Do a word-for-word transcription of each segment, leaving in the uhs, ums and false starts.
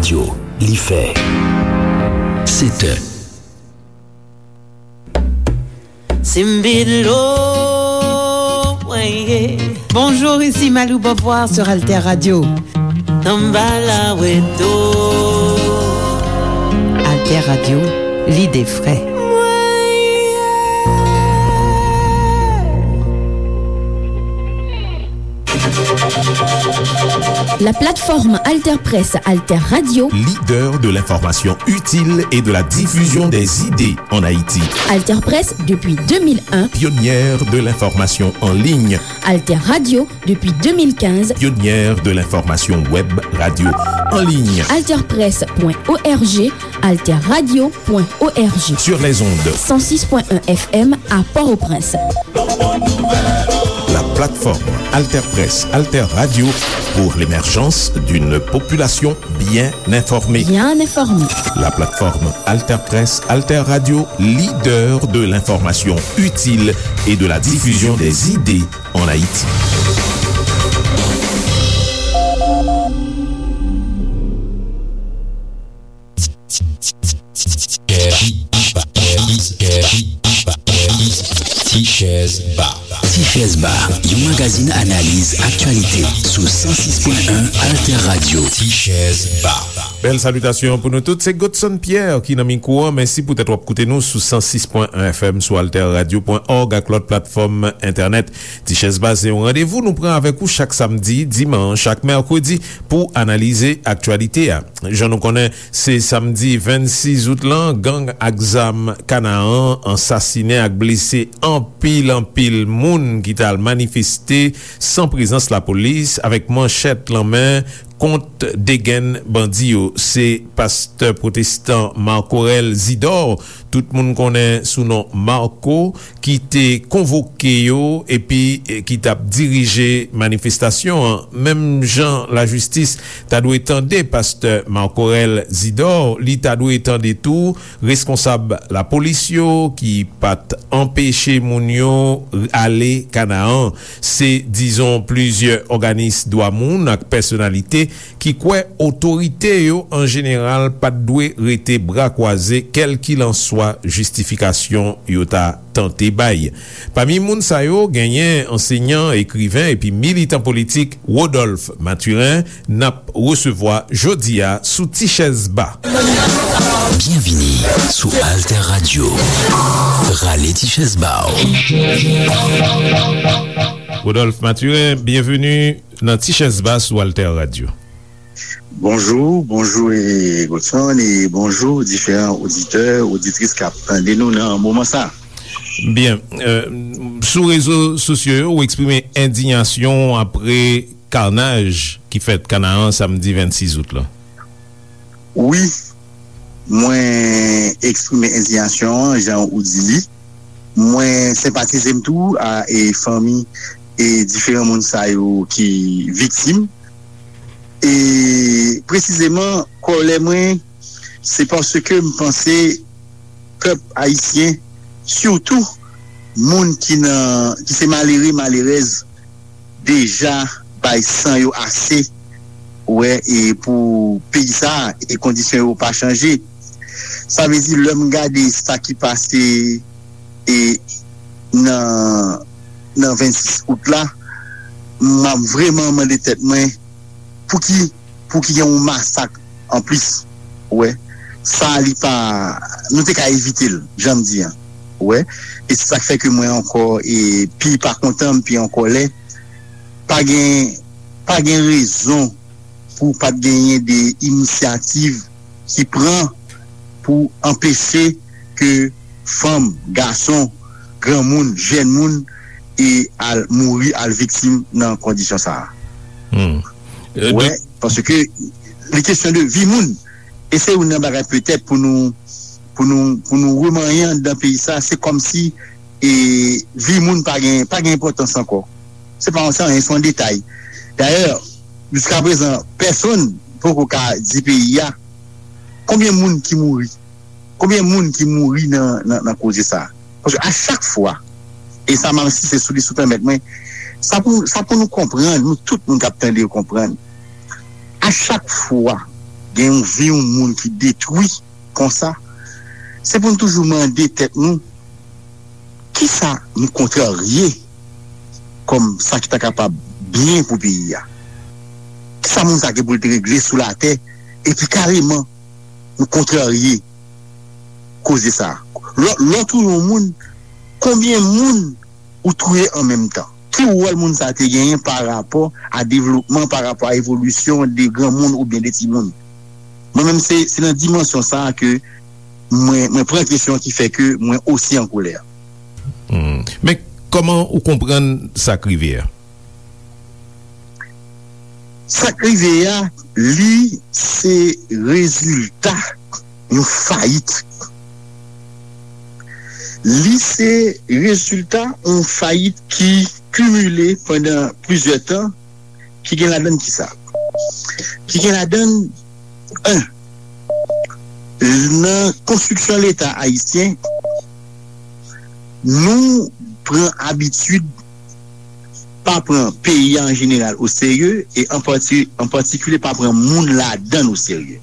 Yo, li fè sèt è. Simbilo, mwen ye. Bonjour, ici Malou Beauvoir sur Alter Radio. Tanbala weto. Alter Radio, lide fre. La plateforme Alter Presse Alter Radio. Leader de l'information utile et de la diffusion des idées en Haïti. Alter Presse depuis deux mille un. Pionnière de l'information en ligne. Alter Radio depuis deux mille quinze. Pionnière de l'information web radio en ligne. Alter Presse point O R G, Alter Radio point O R G. Sur les ondes. Cent six point un F M à Port-au-Prince. La plateforme Alter Presse, Alter Radio pour l'émergence d'une population bien informée. Bien informée. La plateforme Alter Presse, Alter Radio, leader de l'information utile et de la diffusion des idées en Haïti. Tichèz Ba. Tichèz Ba, yon magazin analiz aktyalite sou san sis pwen en Alter Radio. Tichèz Ba. Bèl salitasyon pou nou tout. Se Godson Pierre ki nan mikwo an. Mèsi poutèt w ap koute nou sou san sis pwen en F M, sou alter radio pwen org ak lòt platfòm entènèt. Tichèz Ba se yon randevou nou pran avèk ou chak samdi, dimanch ak mèkredi pou analize aktyalite a. Jan nou konnen, se samdi vennsis out lan, gang ak zam Kanaan ansasinen ak blese anpil, anpil moun ki t al manifeste san prezans lapolis, avèk manchèt lan men, kont de grenn bandi yo. Se pastè pwotestan Marc Aurel Zidor, tout moun konnen sou non Marco, ki te konvoke yo epi, eh, ki t ap dirije manifestasyon an. Menm jan lajistis ta dwe tande pastè Marc Aurel Zidor, li ta dwe tande tou reskonsab lapolis yo ki pa t anpeche moun yo ale Kanaan. Se dizon plizyè òganis dwa moun ak pèsonalite ki kwè otorite yo an jeneral pa t dwe rete bra kwaze, kèlkilanswa jistifikasyon yo ta tante bay. Pami moun sa yo, genyen ansenyan, ekriven epi militan politik Rodolphe Mathurin n ap resevwa jodi a sou Tichèz Ba. Byenvini sou Alter Radio. Rale Tichèz Ba w. Rodolphe Mathurin, byenveni nan Tichèz Ba sou Alter Radio. Bonjou, bonjou, e, Godson, e bonjou diferan oditè, oditris k ap tande nou nan moman sa. Byen, e, sou rezo sosyo yo, ou eksprime endiyasyon w apre kanaj ki fèt Kanaan samdi vennsis out lan. Wi, mwen eksprime endiyasyon an, jan ou di li. Mwen senpatize m tou a, e, fanmi, e, diferan moun sa yo ki viktim. E presizeman, kòlè mwen, se paske m panse pèp ayisyen, sitou moun ki nan, ki se malere, malerèz, deja bay san yo ase, wè, e pou peyi sa a, e kondisyon yo pa chanje. Sa vle di, lè m gade sa ki pase, e nan, nan vennsis out la, m ap vrèman mande tèt mwen, pouki, pouki gen yon masak anplis, ou wè. Sa li pa, nou te ka evite l, jan m di an, ou wè. E se sa k fè ke mwen ankò, e pi pa kontan, m pi an kòlè. Pa gen, pa gen rezon pou pa t genyen de inisyativ ki pran pou anpeche ke fanm, gason, granmoun, jèn moun, e al mouri, al viktim nan kondisyon sa a. Hmm. Euh, wè, donk, paske li kesyon de vi moun. E se youn nan bagay petèt pou nou, pou nou, pou nou remanyen anndan peyi sa, se kòmsi, e, vi moun pa gen, pa gen enpòtans ankò. Se pa yon, se anyen, se yon detay. Dayè, jiskaprezan, pèsonn poko ka di peyi a konbyen moun ki mouri. Konbyen moun ki mouri nan, nan, nan koze sa a? Paske a chak fwa, e sa m ap ensiste sou li, si w pèmèt mwen, sa pou, sa pou nou konprann, nou tout moun k ap tande yo konprann. A chak fwa gen yon vi yon moun ki detwi konsa, se pou n toujou mande tèt nou, kisa nou kontrarye kòm sa ki ta kapab byen pou peyi a? Kisa moun sa gen pou l te regle sou latè, epi kareman nou kontrarye koze sa? Lò, lò touye yon moun, konbyen moun ou touye an menm tan? Ki wòl moun sa te genyen pa rapò a devlopman, pa rapò a evolisyon de granmoun oubyen de timoun? Mwen menm, se, se nan dimansyon sa a ke mwen, mwen pran kesyon ki fè ke mwen osi an kolè. Hmm. Men, kòman ou konprann sa k rive a? Sa k rive a, li se rezilta yon fayit. Li se rezilta yon fayit ki kimile pandan plizyè tan, ki gen ladann kisa? Ki gen ladann, en, nan konstriksyon Leta ayisyen, nou pran abitid pa pran peyi a an jeneral oserye, e an pati-, an patikilye pa pran moun ladann oserye.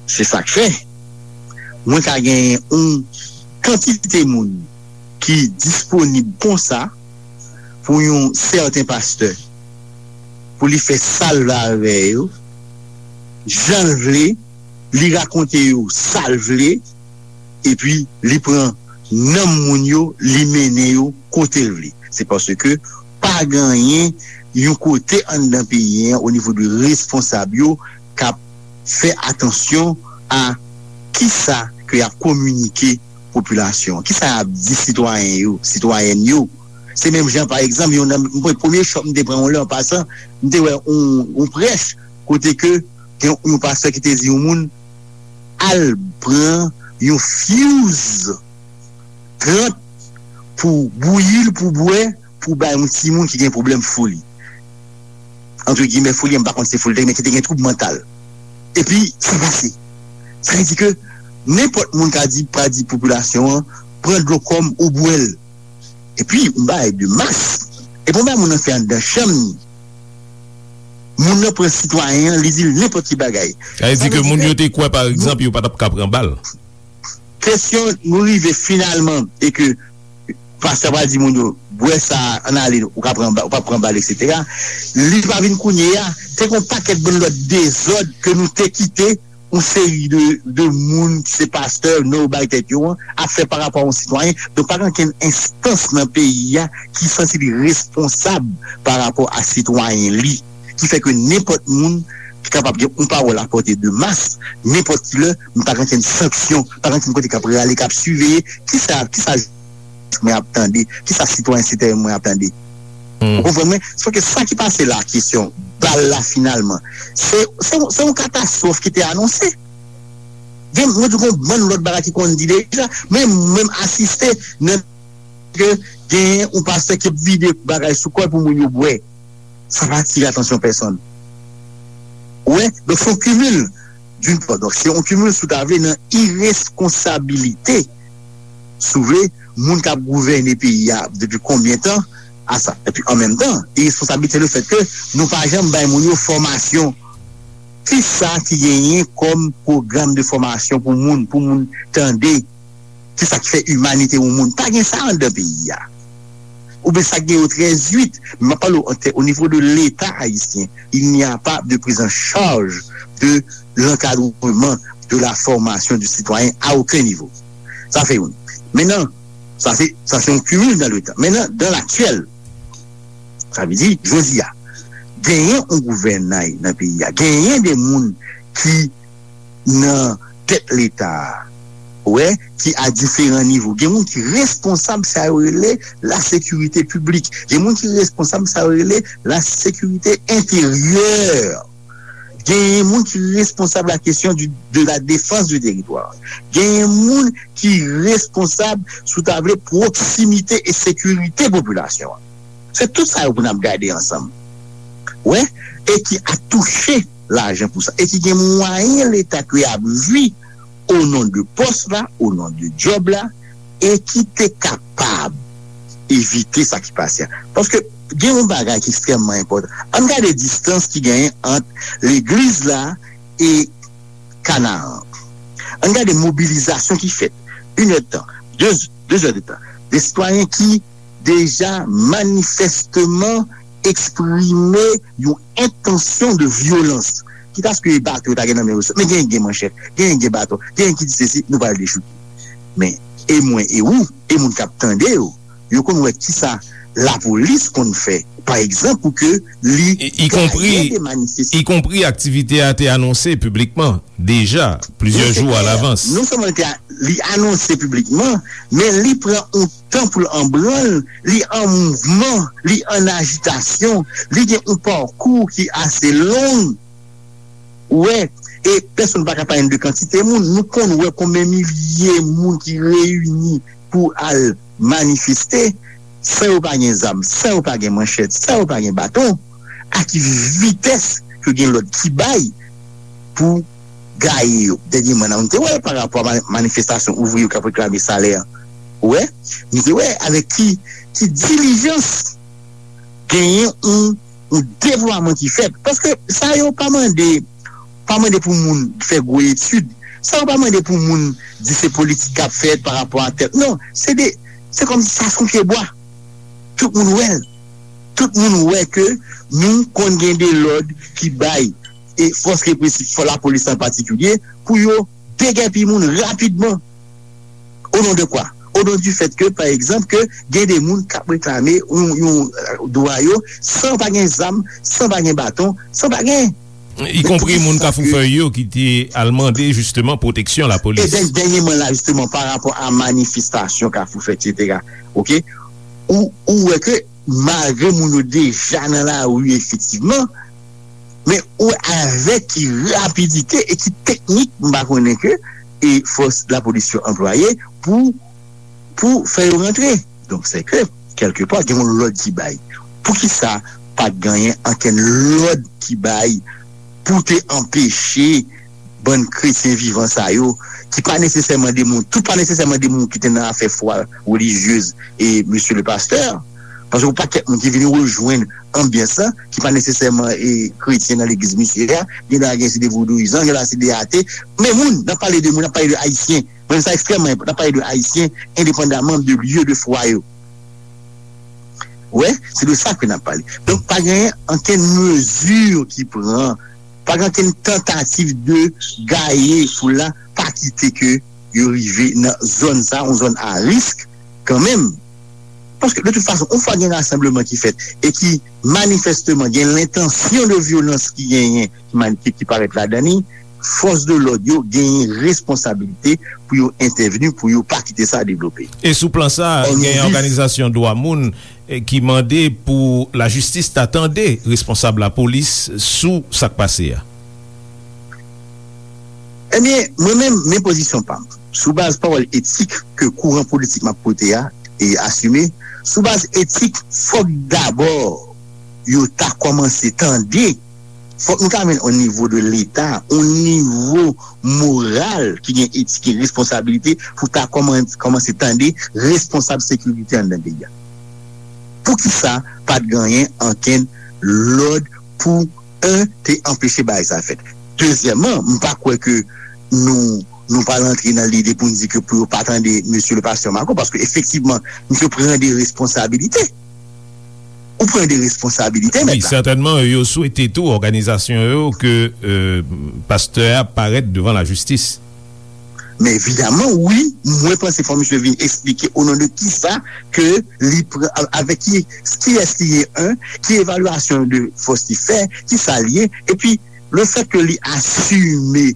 Se sa k fè mwen ka genyen yon kantite moun ki disponib konsa pou yon sèten pastè, pou li fè sa l vle avè yo, jan l vle, li rakonte yo sa l vle, epi li pran nanm moun yo, li mennen yo kote l vle. Se paske pa genyen yon kote anndan peyi a, o nivo de responsab yo, k ap fè atansyon a kisa ke y ap kominike popilasyon an, kisa y ap di sitwayen yo, sitwayèn yo. Se menm jan, pa egzanp, yon nan, mwen, premye chòk m te pran yon lè, an pasan, m te wè yon, yon prèch kote ke gen yon pastè ki te di yon moun al pran yon fyouz trant pou bouyi l, pou bwè, pou bay yon timoun ki gen pwoblèm foli. Antre gimè, foli, m pa konn si se foli, men ki te gen twoub mantal. Epi, sa pase. Sa vle di ke nenpòt moun ka di, ka di popilasyon an, pran dlo kòm ou bwè l. Epi, yon bagay de mas. Epi, yon bagay moun nan fè anndan chanm ni. Moun nan pran sitwayen an, li di l nenpòt ki bagay. Sa vle di ke moun yo te kwè, pa egzanp, yo pa t ap ka pran bal. Kesyon, nou rive finalman, e ke pastè pral di moun yo, bwè sa, ann ale, ou ka pran ba-, ou p ap pran bal, etsetera. Li pa vin kounye a, te gen yon pakèt bann lòt dezòd ke nou te kite yon seri de, de moun ki se pastè, non yo bay tèt yo an, ap fè pa rapò a yon sitwayen. Donk, pa gen okenn enstans nan peyi a ki santi li responsab pa rapò a sitwayen li. Ki fè ke nenpòt moun ki kapab gen yon pawòl a pòte de mas, nenpòt ki lè, men pa gen okenn sanksyon, pa gen okenn kote k ap rale, k ap siveye, kisa, kisa mwen ap tande, kisa sitwayen sitwayèn mwen ap tande. Hmm. Ou konprann mwen? Se paske sa ki pase la, kesyon bal la finalman, se, se, se yon katastwòf ki te anonse. Gen, mwen di gen yon bann lòt bagay ki konn di deja, men mwen menm asiste nan ke genyen yon pastè ki ap vide bagay sou kò l pou moun yo bwè. Sa pa atire atansyon pèsonn. Ou wè? Donk, se yon kimil, d'une part. Donk, se yon kimil, si w ta vle, nan iresponsabilite, si w vle, moun k ap gouvène peyi a depi konbyen tan a sa. Epi, an menm tan, iresponsabilite le fèt ke nou pa janm bay moun yo fòmasyon. Kisa ki genyen kòm pwogram de fòmasyon pou moun, pou moun tande? Kisa ki fè imanite yon moun? Pa gen sa anndan peyi a. Oubyen sa k gen yo trèz uit. Men m ap pale w an tè-, au niveau de l'État haïtien, il n'y a pas de prise en charge de l'encadrement, de la formation du citoyen à aucun niveau. Sa fè youn. Mentnan, sa se, sa se yon kimil dans le temps. Mentnan, dans l'actuel, sa vle di, jodi a, genyen yon gouvènay nan peyi a, genyen de moun ki nan tèt Leta a, wè, ki a diferan nivo. Gen moun ki responsab sa yo rele la sécurité publique. Gen moun ki responsab sa yo rele la sécurité intérieure. Gen moun ki responsab la question du, de la défense du territoire. Gen moun ki responsab, si w ta vle, pwoksimite e sekirite popilasyon an. Se tout sa yo pou n ap gade ansanm. Wè, e ki a touche lajan pou sa. E ki gen mwayen Leta ke y ap jwi o non de pòs la, o non de djòb la, e ki te kapab evite sa ki pase a. Paske gen yon bagay ki ekstrèmman enpòtan. Ann gade distans ki genyen ant legliz la e Kanaran. Ann gade mobilizasyon ki fèt. Inèdtan, de, de zèdtan. De sitwayen ki deja manifèsteman eksprime yon entansyon de vyolans. Kitaske bato yo ta gen nan men yo, men genyen gen manchèt, genyen gen baton, genyen ki di sesi, nou pral dechouke. Men, e mwen, e ou, e moun k ap tande yo, yo konn wè kisa lapolis konn fè, pa egzanp, pou ke li gaye de manifestasyon. Ikonpri aktivite a te anonse piblikman deja plizyè jou alavans. Non sèlman li te a- li anonse piblikman, men li pran yon tan pou l an branl, li an mouvman, li an ajitasyon, li gen yon pakou ki ase long. Ou wè, e pèsonn pa ka pale de kantite moun. Nou konn wè konbyen milye moun ki reyini pou al manifeste, san yo pa gen zam, san yo pa gen manchèt, san yo pa gen baton. A ki vitès yo gen lòd ki bay pou gaye yo? Dènyèman, nou te wè l pa rapò a ma- manifestasyon ouvriye yo k ap reklame salè. Ou wè? Nou te wè avèk ki, ki dilijans genyen yon, yon deplwaman ki fèt. Paske sa yo pa mande, pa mande pou moun fè gwo etid. Sa yo pa mande pou moun di se politik k ap fèt pa rapò a tèl. Non, se de, se kòmsi sa se yon pye bwa. Tout moun wè l. Tout moun wè ke nou konn gen de lòd ki bay e fòs represif, fò lapolis an patikilye, pou yo degèpi moun rapidman. O non de kwa? O non du fèt ke, pa egzanp, ke gen de moun k ap reklame yon, yon, euh, dwa yo, san pa gen zam, san pa gen baton, san pa gen. Ikonpri moun Kafou Fèy yo ki te al mande jisteman pwoteksyon lapolis. E dènyèman la, jisteman, pa rapò a manifestasyon Kafou Fèy, etsetera. Oke? Ou, ou wè ke malgre moun yo deja nan lari efektivman, men ou wè avèk ki rapidite e ki teknik, m pa konnen ke, e fòs lapolis yo anplwaye pou, pou fè yo rantre. Donk, se ke, kèlkepa, gen yon lòd ki bay. Poukisa pa t genyen ankenn lòd ki bay pou te anpeche bann kretyen vivan sa yo, ki pa nesesèman de moun, tout pa nesesèman de moun ki te nan afè fwa relijyez e mesye le pastè, paske yon pakèt moun ki vin rejwenn anbyans lan, ki pa nesesèman e kretyen nan legliz misye a, gen la gen se de vodouyizan, gen la se de ate, men moun, n ap pale de moun, n ap pale de ayisyen, mwen sa ekstrèmman enpòtan, n ap pale de ayisyen, endepandaman de lye de fwa yo. Wè, se de sa ke n ap pale. Donk, pa gen ankenn mezi ki pran, pa gen ankenn tantativ de gaye foul la, pa kite ke yo rive nan zòn sa, yon zòn a risk kanmenm. Paske, de tout fason, yon fwa gen rasanbleman ki fèt e ki manifèsteman gen lentansyon de vyolans ki genyen, ki, mani- ki, ki parèt ladan li, fòs de lòd yo genyen responsabilite pou yo entèvni, pou yo pa kite sa devlope. E sou plan sa, gen òganizasyon dwa moun, eh, ki mande pou lajistis ta tande responsab lapolis sou sa k pase a. Ebyen, mwen menm, men pozisyon pa m. Sou baz pawòl etik ke kouran politik m ap pote a e asime, sou baz etik, fòk dabò yo ta kòmanse tande. Fòk nou ta jwenn o nivo de Leta, o nivo moral ki gen etik e responsabilite pou ta kòman- kòmanse tande responsab sekirite anndan peyi a. Poukisa pa t genyen ankenn lòd pou, en, te anpeche bagay sa fèt? Dezyèmman, m pa kwè ke nou, nou pral antre nan lide pou n di ke pou yo pa tande mesye le pastè Marco, paske efektivman, misye pran de responsabilite. Ou pran de responsabilite, wi, mèt la. Sètènman, yo swete tou òganizasyon yo ke, euh, pastè a parèt devan lajistis. Men evidaman, wi, mwen panse fò misye vin eksplike o non de kisa ke li pran, avèk ki, kiyès li ye, en, ki evalyasyon de fòs li fè, kisa li ye, epi le fèt ke li asime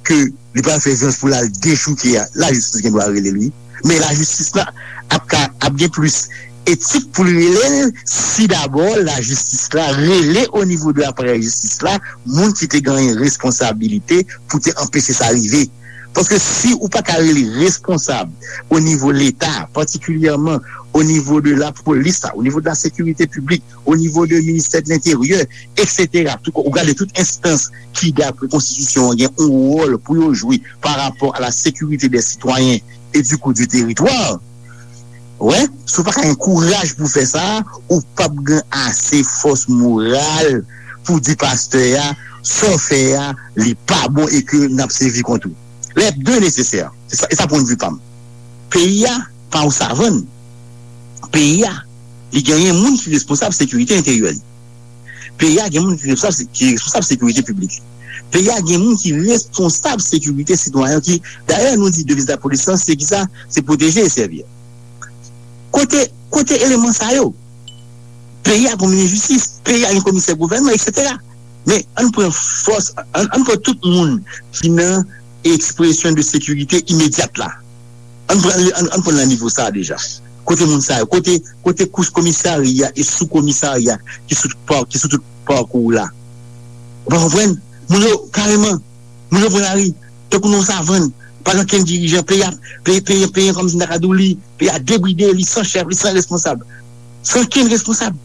ke li pral fè vyolans pou l al dechouke a, lajistis gen dwa rele l, wi. Men lajistis la ap ka, ap gen plis etik pou l rele l si dabò lajistis la rele o nivo de aparèy jistis la moun ki te genyen responsabilite pou te anpeche sa rive. Paske si ou pa ka rele responsab o nivo Leta, patikilyèman o nivo de lapolis la, o nivo de la sekirite piblik, o nivo de ministè de lenteryè, etsetera. Tout, ou gade tout enstans ki, dapre konstitisyon an, gen yon wòl pou yo jwe pa rapò a la sécurité des citoyens et du coup du territoire. Wè, si w pa ka gen kouraj pou fè sa, ou p ap gen ase fòs moral pou di pastè a, sa w fè a, li pa bon e ke n ap sèvi kont ou. Lè de nesesè. Se sa, e sa pwennvi pa m. Peyi a pa yon savann. Peyi a, li genyen moun ki responsab sekirite enteryè li. Peyi a gen moun ki responsab, ki responsab sekirite piblik li. Peyi a gen moun ki responsab sekirite sitwayen ki, dayè, nou di deviz lapolis lan, se ki sa? Se pwoteje e sèvi. Kote, kote eleman sa yo? Peyi a gen minis jistis, peyi a gen komisè gouvènman, etsetera. Men ann pran fòs, ann, ann pran tout moun ki nan ekspresyon de sekirite imedyat la. Ann pran, ann, ann pran nan nivo sa a deja. Kote moun sa yo? Kote, kote kouch komisarya e sou komisarya ki sou tout pa, ki sou tout pakou la? Ou pa konprann? Moun yo, kareman, moun yo pran lari. Tankou nan yon savann, pa gen okenn dirijan. Peyi a, peyi, peyi, peyi an kòmsi m ta ka di w li, peyi a debride, li san chèf, li san responsab. San okenn responsab.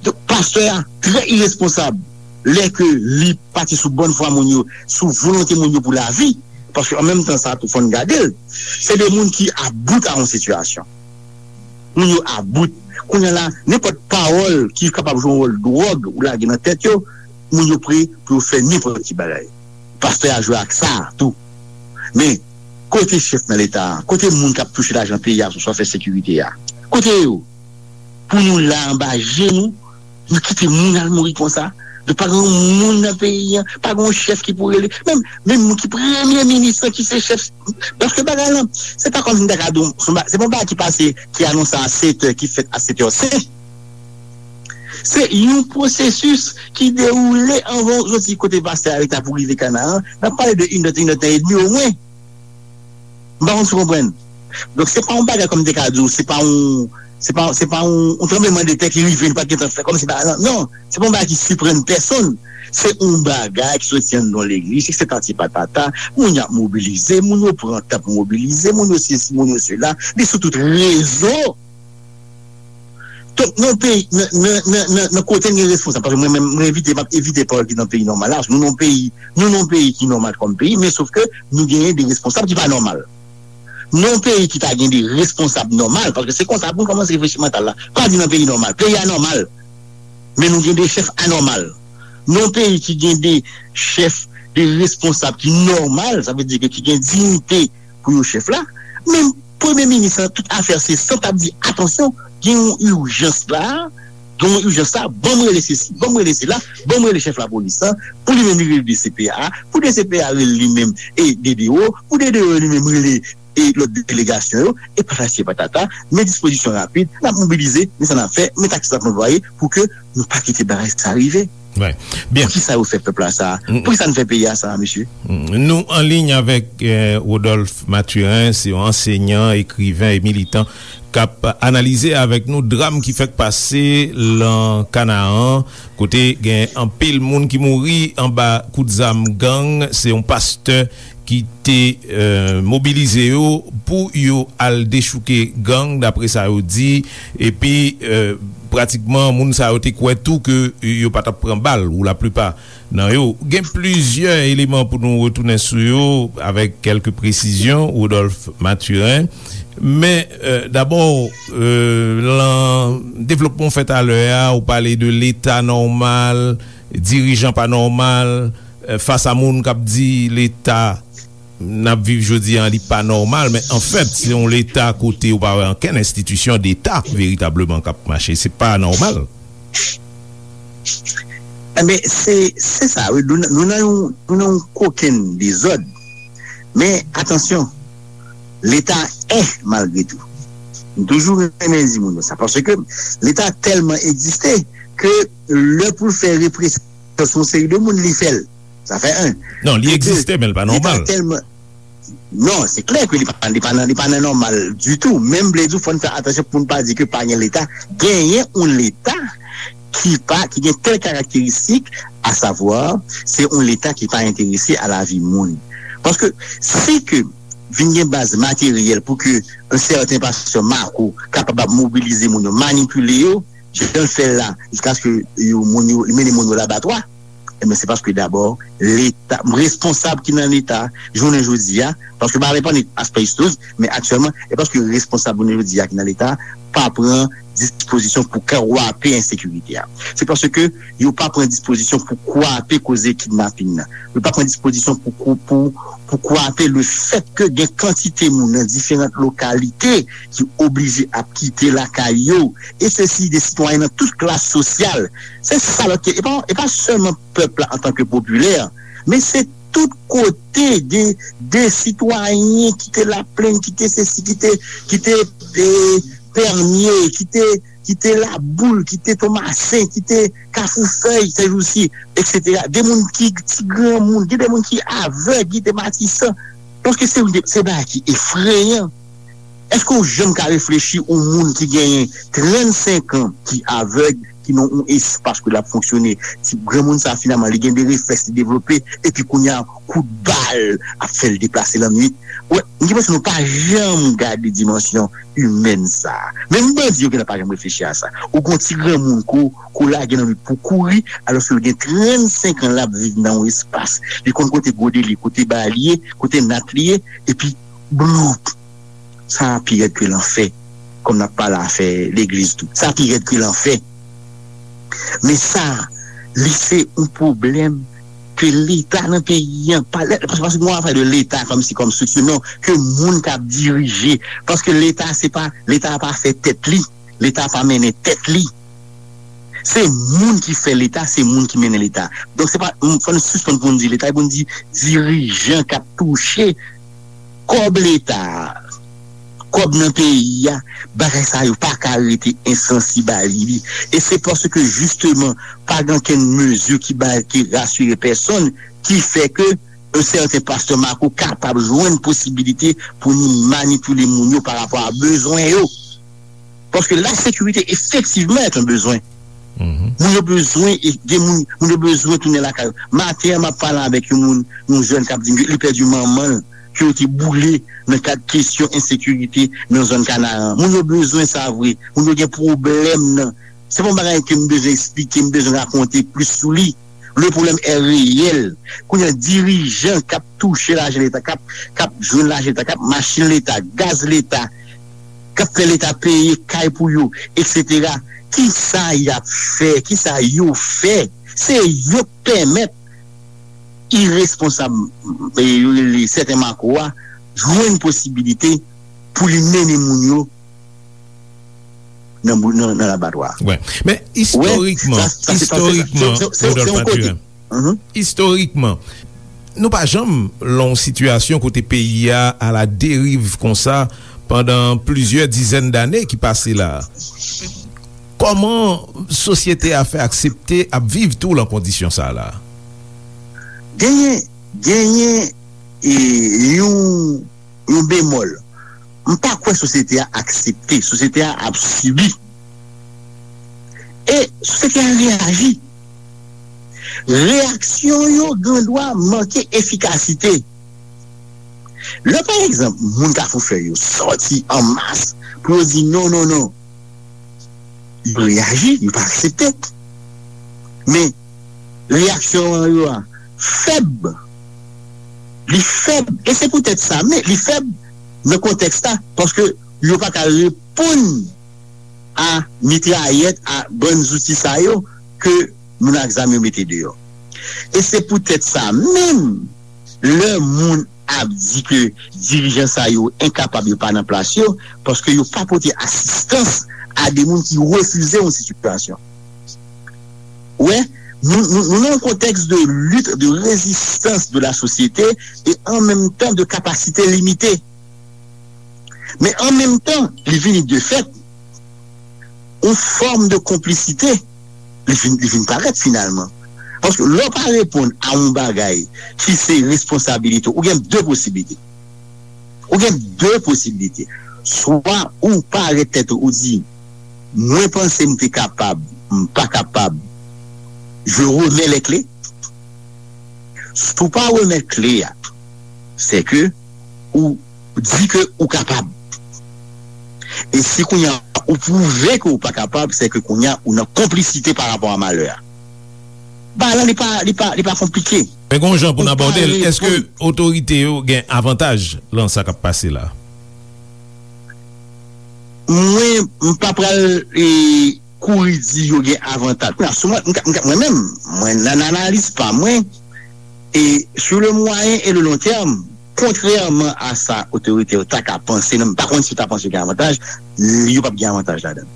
Donk, pastè a trè iresponsab lè ke li pati sou bòn fwa moun yo, sou volonte moun yo pou lavi, paske an menm tan sa tou fò n gade l. Se de moun ki about a yon sitiyasyon. Moun yo about. Kounye a la, nenpòt pawòl ki kapab jwe yon wòl dwòg ou lage nan tèt yo, moun yo pre pou yo fè nenpòt ki bagay. Pastè a jwe ak sa tou. Men, kote chèf nan Leta a? Kote moun k ap touche lajan peyi a sou sa fè sekirite a? Kote yo? Pou nou la anba je nou, nou kite moun al mouri konsa. Nou pa gen moun nan peyi a, pa gen yon chèf ki pou rele. Menm, menm moun ki premye minis lan, ki se chèf. Paske bagay lan, se pa kòmsi m ta ka di w, se pa, se pa yon bagay ki pase, ki anonse a sèt è, ki fèt a sèt è senk. Se yon pwosesis ki dewoule anvan w soti kote pastè a rete pou rive Kanaran. N ap pale de inèdtan, inèdtan edmi omwen. M pa konn si w konprann. Donk, se pa yon bagay kòm m te ka di w, se pa yon, se pa, se pa yon, yon tranblemanndetè ki rive, nou pa t gentan fè kòmsi bagay lan. Non, se pa yon bagay ki siprann pèsonn. Se yon bagay ki soti anndan yon legliz, se patati patata, moun y ap mobilize, moun yo pran tan pou mobilize, moun yo sesi, moun yo sela, li sou tout rezo. Donk, nan peyi, nan, nan, nan, nan, nan kote n gen responsab, paske mwen menm, mwen evite, m ap evite pawòl ki nan peyi nòmal la, paske nou nan peyi, nou nan peyi ki nòmal kòm peyi, men sof ke nou genyen de responsab ki pa nòmal. Nan peyi ki ta gen de responsab nòmal, paske se konsa pou n kòmanse reflechi mantal la, pa di nan peyi nòmal, peyi anòmal, men nou gen de chèf anòmal. Nan peyi ki gen de chèf, de responsab ki nòmal, sa vle di ke ki gen diyite pou yo chèf la, men premye minis lan, tout afè se sant ap di, atansyon, gen yon ijans la, gen yon ijans la, ban m rele sesi, ban m rele sela, ban m rele chèf lapolis lan, pou li menm li rele D C P A, pou D C P A rele li menm e D D O, pou D D O li menm rele e lòt delegasyon yo, e patati e patata, men dispozisyon rapid, n ap mobilize, men sa n ap fè, men taktik n ap anplwaye pou ke nou pa kite bagay sa rive. Wi. Byen. Poukisa yo fè pèp la sa? Poukisa n fè peyi a sa, mesye? Nou an liy avèk, eh, Rodolphe Mathurin, se yon ansenyan, ekriven e militan k ap analize avèk nou dram ki fèk pase lan Kanaran, kote gen anpil moun ki mouri anba kout zam gang. Se yon pastè ki te, eh, mobilize yo pou yo al dechouke gang, dapre sa yo di, epi, eh, pratikman, moun sa yo te kwè tou ke yo pa t ap pran bal, ou laplipa nan yo. Gen plizyè eleman pou nou retounen sou yo avèk kèlke presizyon, Rodolphe Mathurin. Men, eh, dabò, eh, lan devlopman w fè talè a, ou pale de Leta nòmal, dirijan pa nòmal, eh, fas a moun k ap di Leta n ap viv jodi a, li pa nòmal, men anfèt, se yon Leta kote ou pa wè ankenn enstitisyon deta veritableman k ap mache. Se pa nòmal. Enben, se, se sa, wi. Nou, nou nan yon, nou nan yon kokenn dezòd. Men, atansyon, Leta è malgre tou. M toujou renmen di moun yo sa, paske Leta tèlman egziste ke lè pou l fè represyon sou yon seri de moun, li fè l. Sa fè en. Non, li egziste, men l pa nòmal. Leta tèlman, non, se klè ke li pa, li pa nan, li pa nan nòmal ditou. Men m vle di w, fò n fè atansyon pou n pa di ke pa gen Leta. Genyen yon Leta ki pa, ki gen tèl karakteristik, asavwa, se yon Leta ki pa enterese a lavi moun. Paske si ke vin gen baz materyèl pou ke yon sèten pastè Mako kapab ap mobilize moun yo, manipile yo, jan l fè l la, jiskaske yo, moun yo, li mennen moun yo labatwa, ebyen, se paske dabò, Leta, responsab ki nan Leta, jounen jodi a, paske m pa reponn aspè istorik, men aktyèlman, e paske responsab jounen jodi a ki nan Leta, pa pran dispozisyon pou kwape ensekirite a. Se paske yo pa pran dispozisyon pou kwape koze kidnaping nan. Yo pa pran dispozisyon pou, pou, pou, pou kwape le fèt ke gen kantite moun nan diferan lokalite ki oblije ap kite lakay yo. E se si de sitwayen nan tout klas sosyal. Se sa lòt ke, e pa, e pa sèlman pèp la antanke popilè, men se tout kote de, de sitwayen ki te Laplenn, ki te sesi, ki te, ki te, e, Pèmye, ki te, ki te Laboul, ki te Tomasen, ki te Kafou Fèy, sèjousi, etsetera. De moun ki, ti granmoun, gen de moun ki avèg, ki te Matisan. Paske se, se bagay ki efreyan. Èske w janm ka reflechi yon moun ki genyen trannsenk an, ki avèg, ki nan yon espas ke l ap fonksyone, ti granmoun sa finalman, li gen de reflèks li devlope, epi kounye a, kout bal ap fè l deplase lannwit. Wè, m gen enpresyon nou pa janm gade dimansyon imèn sa a. Menm bandi yo genlè pa janm reflechi a sa. Ou gon ti granmoun ko, ko lage nan lwit pou kouri, alòske l gen trannsenk an l ap viv nan yon espas. Li konn kote gode li, kote ba li ye, kote nat li ye, epi bloup. Sa a pi rèd ke lanfè. Kòm n ap pale afè legliz tou. Sa a pi rèd ke lanfè. Men sa, li se yon pwoblèm ke Leta nan peyi an, pa, paske, paske nou ap pale de Leta kòmsi kòm strikti, non, ke moun k ap dirije. Paske Leta, se pa, Leta pa fè tèt li. Leta pa mennen tèt li. Se moun ki fè Leta, se moun ki mennen Leta. Donk, se pa, fò n sispann pou n di Leta, e pou n di dirijan k ap touche kòb Leta a, kòb nan peyi a, bagay sa yo pa ka rete ensansib a li. E se paske, jisteman, pa gen okenn mezi ki bay, ki rasire pèsonn, ki fè ke yon sèten pastè Marco kapab jwenn posibilite pou ni manipile moun yo pa rapò a bezwen yo. Paske la sekirite efektivman est un besoin. Moun yo bezwen, e gen moun, moun yo bezwen tounen lakay yo. Maten an, m ap pale avèk yon moun, yon jèn k ap di m li pèdi manman l, ke yo te boule nan kad kesyon ensekirite nan zòn Kanaran. Moun yo bezwen sa vre. Moun yo gen pwoblèm nan. Se pa yon bagay ke m bezwen eksplike, m bezwen rakonte plis sou li. Le problème est réel. Kounye a, dirijan k ap touche lajan Leta, k ap, k ap jwenn lajan Leta, k ap machin Leta, gaz Leta, k ap fè Leta peye kay pou yo, etsetera. Kisa y ap fè? Kisa yo fè? Se yo k pèmèt iresponsab, e, yo rele sèten Marco a, jwenn posibilite pou li mennen moun yo nan, nan, nan labatwa. Wè. Men, istorikman, sa, sa, se, istorikman, se, se, se, se yon kote. Rodolphe Mathurin. Mhm. Istorikman, nou pa janm lan yon sitiyasyon kote peyi a à la dérive konsa pandan plizyè dizèn dane ki pase la. Kòman sosyete a fè aksepte ap viv tou lan kondisyon sa la? Genyen, genyen, e, yon, yon bemòl. M pa kwè sosyete a aksepte. Sosyete a ap sibi. E sosyete a reyaji. Reyaksyon yo gen dwa manke efikasite. Lè, pa egzanp, moun Kafou Fèy yo sòti an mas pou yo di non, non, non, yo reyaji, yo pa aksepte. Men, reyaksyon yo a fèb. Li fèb. E se poutèt sa, men li fèb nan kontèks la, paske yo pa ka reponn a mitrayèt, a bann zouti sa yo ke moun ak zam yo mete deyò. E se poutèt sa menm, lè moun ap di ke dirijan sa yo enkapab, yo pa nan plas yo, paske yo pa pote asistans a de moun ki refize yon sitiyasyon. Wè, nou, nou, nou nan yon kontèks de lit, de rezistans de la sosyete e an menm tan de kapasite limite. Men an menm tan, li vini de fèt, yon fòm de konplisite, li vin, li vin parèt finalman. Paske lè w pa reponn a yon bagay ki se responsabilite w, ou gen de posiblite. Ou gen de posiblite. Swa ou parèt tèt ou, ou di, mwen panse m te kapab, m pa kapab, je remets les clés. Si w pa remèt kle a, se ke ou di ke ou kapab. E si kounye a ou pwouve ke ou pa kapab, se ke kounye a ou nan konplisite pa rapò a malè a. Bagay la, li pa, li pa, li pa konplike. Men gon jan pou n abòde l, èske otorite yo gen avantaj lan sa k ap pase la? Mwen, m pa pral, e, kouri di yo gen avantaj. Kounye a, sou mwen, m ka, m ka, mwen menm, mwen, nan analiz pa mwen, e, sur le moyen et le long terme, kontrèman a sa otorite yo ta ka panse, non, m pa konn si yo ta panse yo gen avantaj, yo p ap gen avantaj ladan.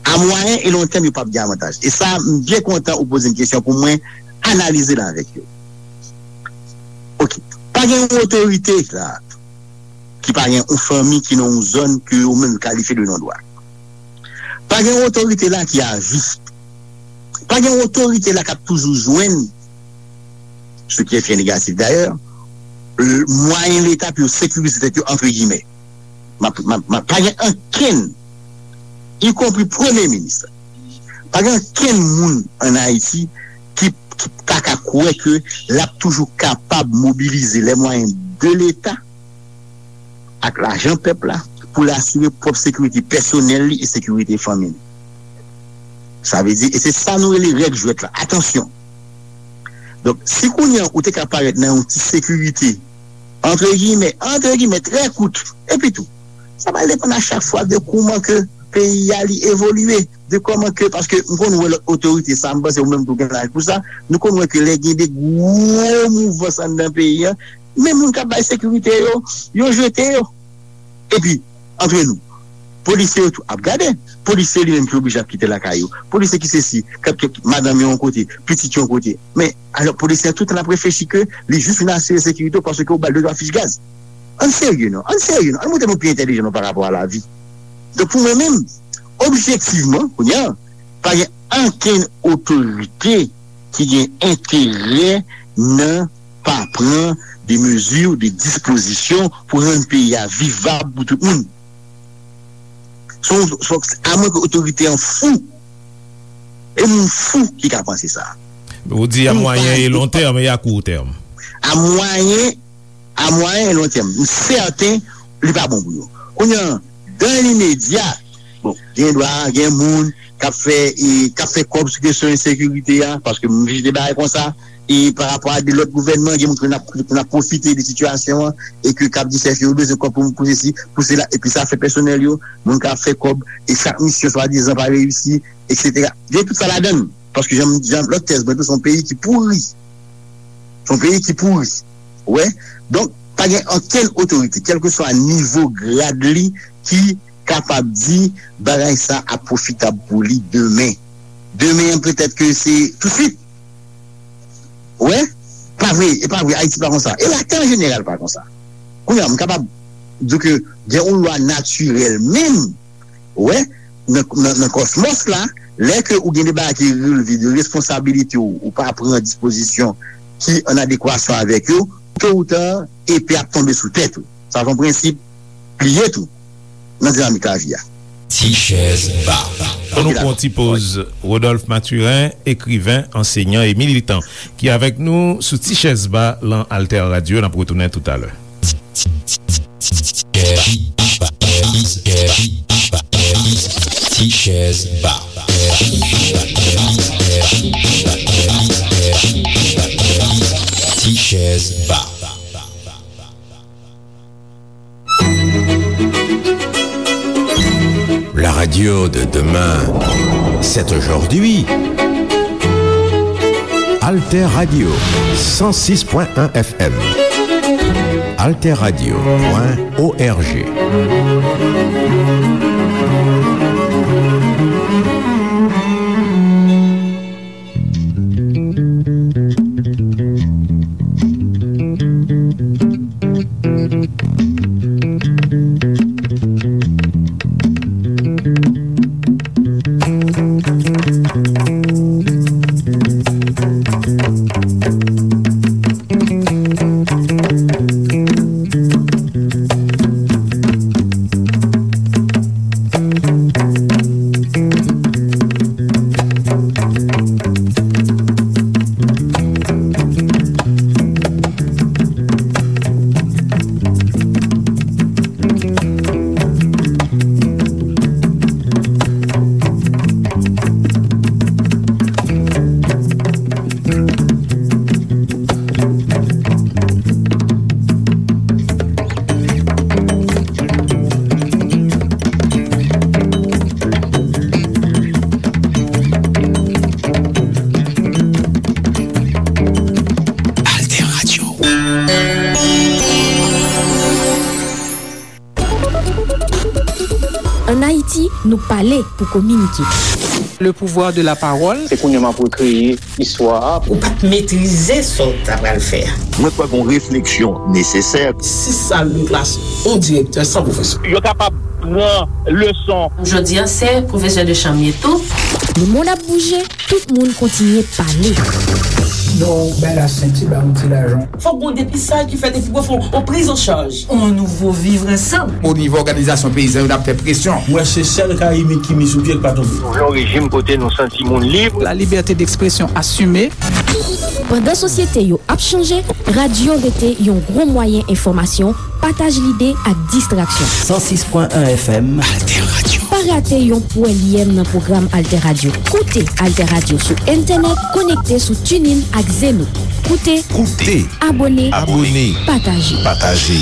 A mwayen e long tèm, yo p ap gen avantaj. E sa, m byen kontan ou poze m kesyon pou mwen analize l avèk yo. Ok. Pa gen yon otorite la ki pa gen yon fanmi ki nan yon zòn ke yo menm kalifye de non dwa. Pa gen yon otorite la ki a vi. Pa gen yon otorite la k ap toujou jwenn, ce qui est très négatif d'ailleurs, mwayen Leta pou yo sekirize tèt yo, antre gimè. M ap, m ap, m ap, pa gen ankenn, ikonpri premye minis la. Pa gen ankenn moun ann Ayiti ki, ki ta ka kwè ke l ap toujou kapab mobilize les moyens de l'État ak lajan pèp la pou l asire pwòp sekirite pèsonèl li e sekirite fanmi li. Sa vle di, e se sa nou rele règ jwèt la. Atansyon! Donk, si kounye a ou te ka parèt nan yon ti sekirite, antre gimè, antre gimè, trè kout, epi tou, sa va depann a chak fwa de kouman ke peyi a li evolye, de kòman ke, paske m konn wè lòt otorite, sa m panse ou menm tou gen laj pou sa, nou konn wè ke lè gen de gwo mouvans anndan peyi a, men moun k ap bay sekirite yo, yo jete yo. Epi, antre nou, polisye yo tou ap gade. Polisye li menm ki oblije ap kite lakay yo. Polisye ki sesi, k ap, k ap, madanm yo yon kote, pitit yo yon kote. Men, alò, polisye a tout tan ap reflechi ke li jis vin asire sekirite w paske w ba l de twa fich gaz. Ann serye non, ann serye non, ann montre nou pi entèlijan nou pa rapò a lavi. Donk, pou mwen menm, objektivman, kounye a, pa gen ankenn otorite ki gen enterè nan pa pran de mezi, de dispozisyon pou rann peyi a vivab pou tout moun. Se yon, se yon, amwen ke otorite an fou. E moun fou ki ka panse sa. Ou di a mwayen e long tèm e a kou tèm. A mwayen, a mwayen e long tèm. M sèten li pa bon pou yo. Kounye a, dan limedya, bon, gen dwa, gen moun k ap fè, e, k ap fè kòb sou kesyon ensekirite a, paske m vizite bagay konsa, e pa rapò a de lòt gouvènman, gen moun ki konn ap, konn ap pwofite de sitiyasyon an, e ke k ap di chèf yo, yo bezwen kòb pou, pou sesi, pou sela, epi sa fè pèsonèl yo, moun k ap fè kòb, e chak misyon swadizan pa reyisi, etsetera. Gen tout sa ladan l, paske jan, jan lòt tèz mwen tou, se yon peyi ki pouri. Se yon peyi ki pouri. Ou wè? Donk, pa gen okenn otorite, kèlkeswa nivo grad li, ki kapab di bagay sa ap pwofitab pou li demen. Demen an, petèt ke se tousuit. Ou wè? Pa vre, e pa vre, Ayiti pa konsa. E latè an jeneral pa konsa. Kounye a, m kapab di w ke gen yon lwa natirèl menm, ou wè, nan, nan, nan kòsmòs la, lè ke ou gen de bagay ki relve de responsabilite w, ou pa pran dispozisyon ki an adekwasyon avèk yo, to ou ta, epe ap tonbe sou tèt ou. Sa se yon prensip li ye tou nan dinamik lavi a. Ti chèz ba. An nou pran ti poz. Rodolphe Mathurin, ekriven, ansenyan e militan, ki avèk nou sou Ti chèz ba lan Alter Radio. N ap retounen toutalè. Ti chèz ba. Ti chèz ba. La radio de demain, c'est aujourd'hui. Alter Radio, cent six point un F M. Alter Radio point O R G. Nou pale pou kominike. Le pouvoir de la parole. Se kounye a m ap rekreye istwa a. Ou pa t metrize sa w ta pral fè a. Mwen kwè gon refleksyon nesesè. Sis sal de klas, yon direktè san pwofesè. Yo kapab pran leson. Jodi a, se pwofesè de chanm ye tou. Lemonn ap bouje, tout moun kontinye pale. Non, bay la senti, ba yon ti lajan. Fòk gon depistaj ki fèt epi pou fè yon priz an chaj. On nouvo vivre ensemble. O nivo òganizasyon peyizan yo, n ap fè presyon. Mwen se sèl Karayib ki mi sou pye k pa tonbe. Nou vle yon rejim kote nou santi moun lib. La liberté d'expression assumée. Pandan sosyete yo ap chanje, radyo rete yon gwo mwayen enfòmasyon, pataj lide ak distraksyon. San sis pwen en F M. Alter Radio. Pa rate yon pwèl yèm nan pwogram Alter Radio. Koute Alter Radio sou entènèt, konekte sou TuneIn ak Zeno. Koute, Koute. Abòne, Abòne. Pataje. Pataje.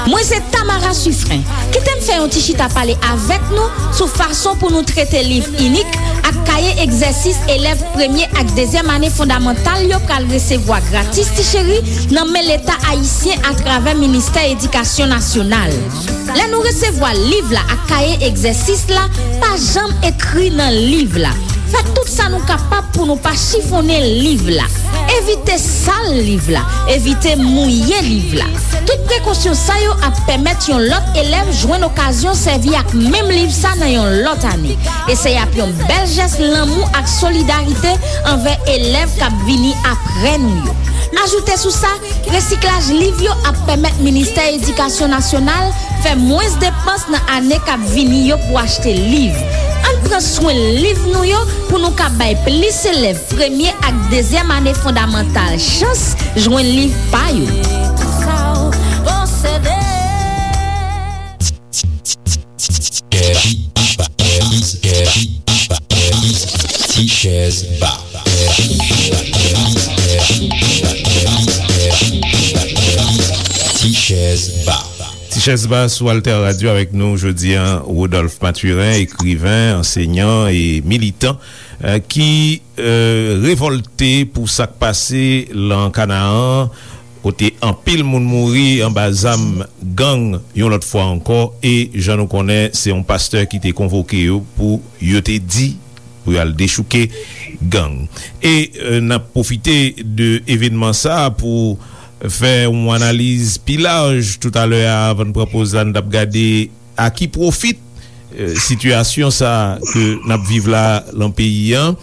Mwen se Tamara Sufren. Kite m fè yon ti chita pale avèk nou sou fason pou nou trete liv inik ak kaye egzèsis elèv premye ak dezyèm ane fondamantal yo pral resevwa gratis ti cheri nan men Leta ayisyen atravè Ministè Edikasyon Nasyonal. Lè nou resevwa liv la ak kaye egzèsis la, pa janm ekri nan liv la. Fè tout sa nou kapab pou nou pa chifonnen liv la. Evite sal liv la. Evite mouye liv la. Tout prekosyon sa yo ap pèmèt yon lòt elèv jwenn okazyon sèvi ak menm liv sa nan yon lòt ane. E se ap yon bèl jès lanmou ak solidarite anvè elèv k ap vini apre nou yo. Ajoute sou sa, resiklaj liv yo ap pèmèt Ministè Edikasyon Nasyonal fè mwens depans nan ane k ap vini yo pou achte liv. Ann pran swen liv nou yo pou nou ka bay plis elèv premye ak dezyèm ane fondamantal chans jwenn liv pa yo. Ti chèz ba. Ti chèz ba. Ti chèz ba sou Alter Radio avèk nou jodi a, Rodolphe Mathurin, ekriven, ansenyan e militan, eh, ki, eh, revòlte pou sa k pase lan Kanaan, kote anpil moun mouri anba zam gang yon lòt fwa ankò, e jan nou konnen, se yon pastè ki te konvoke yo pou yo te di pou y al dechouke gang. E, eh, n ap pwofite de evènman sa a pou fè yon analiz pi laj toutalè a, avan n pran poz la, n t ap gade a ki pwofit, eh, sitiyasyon sa a ke n ap viv la lan peyi an.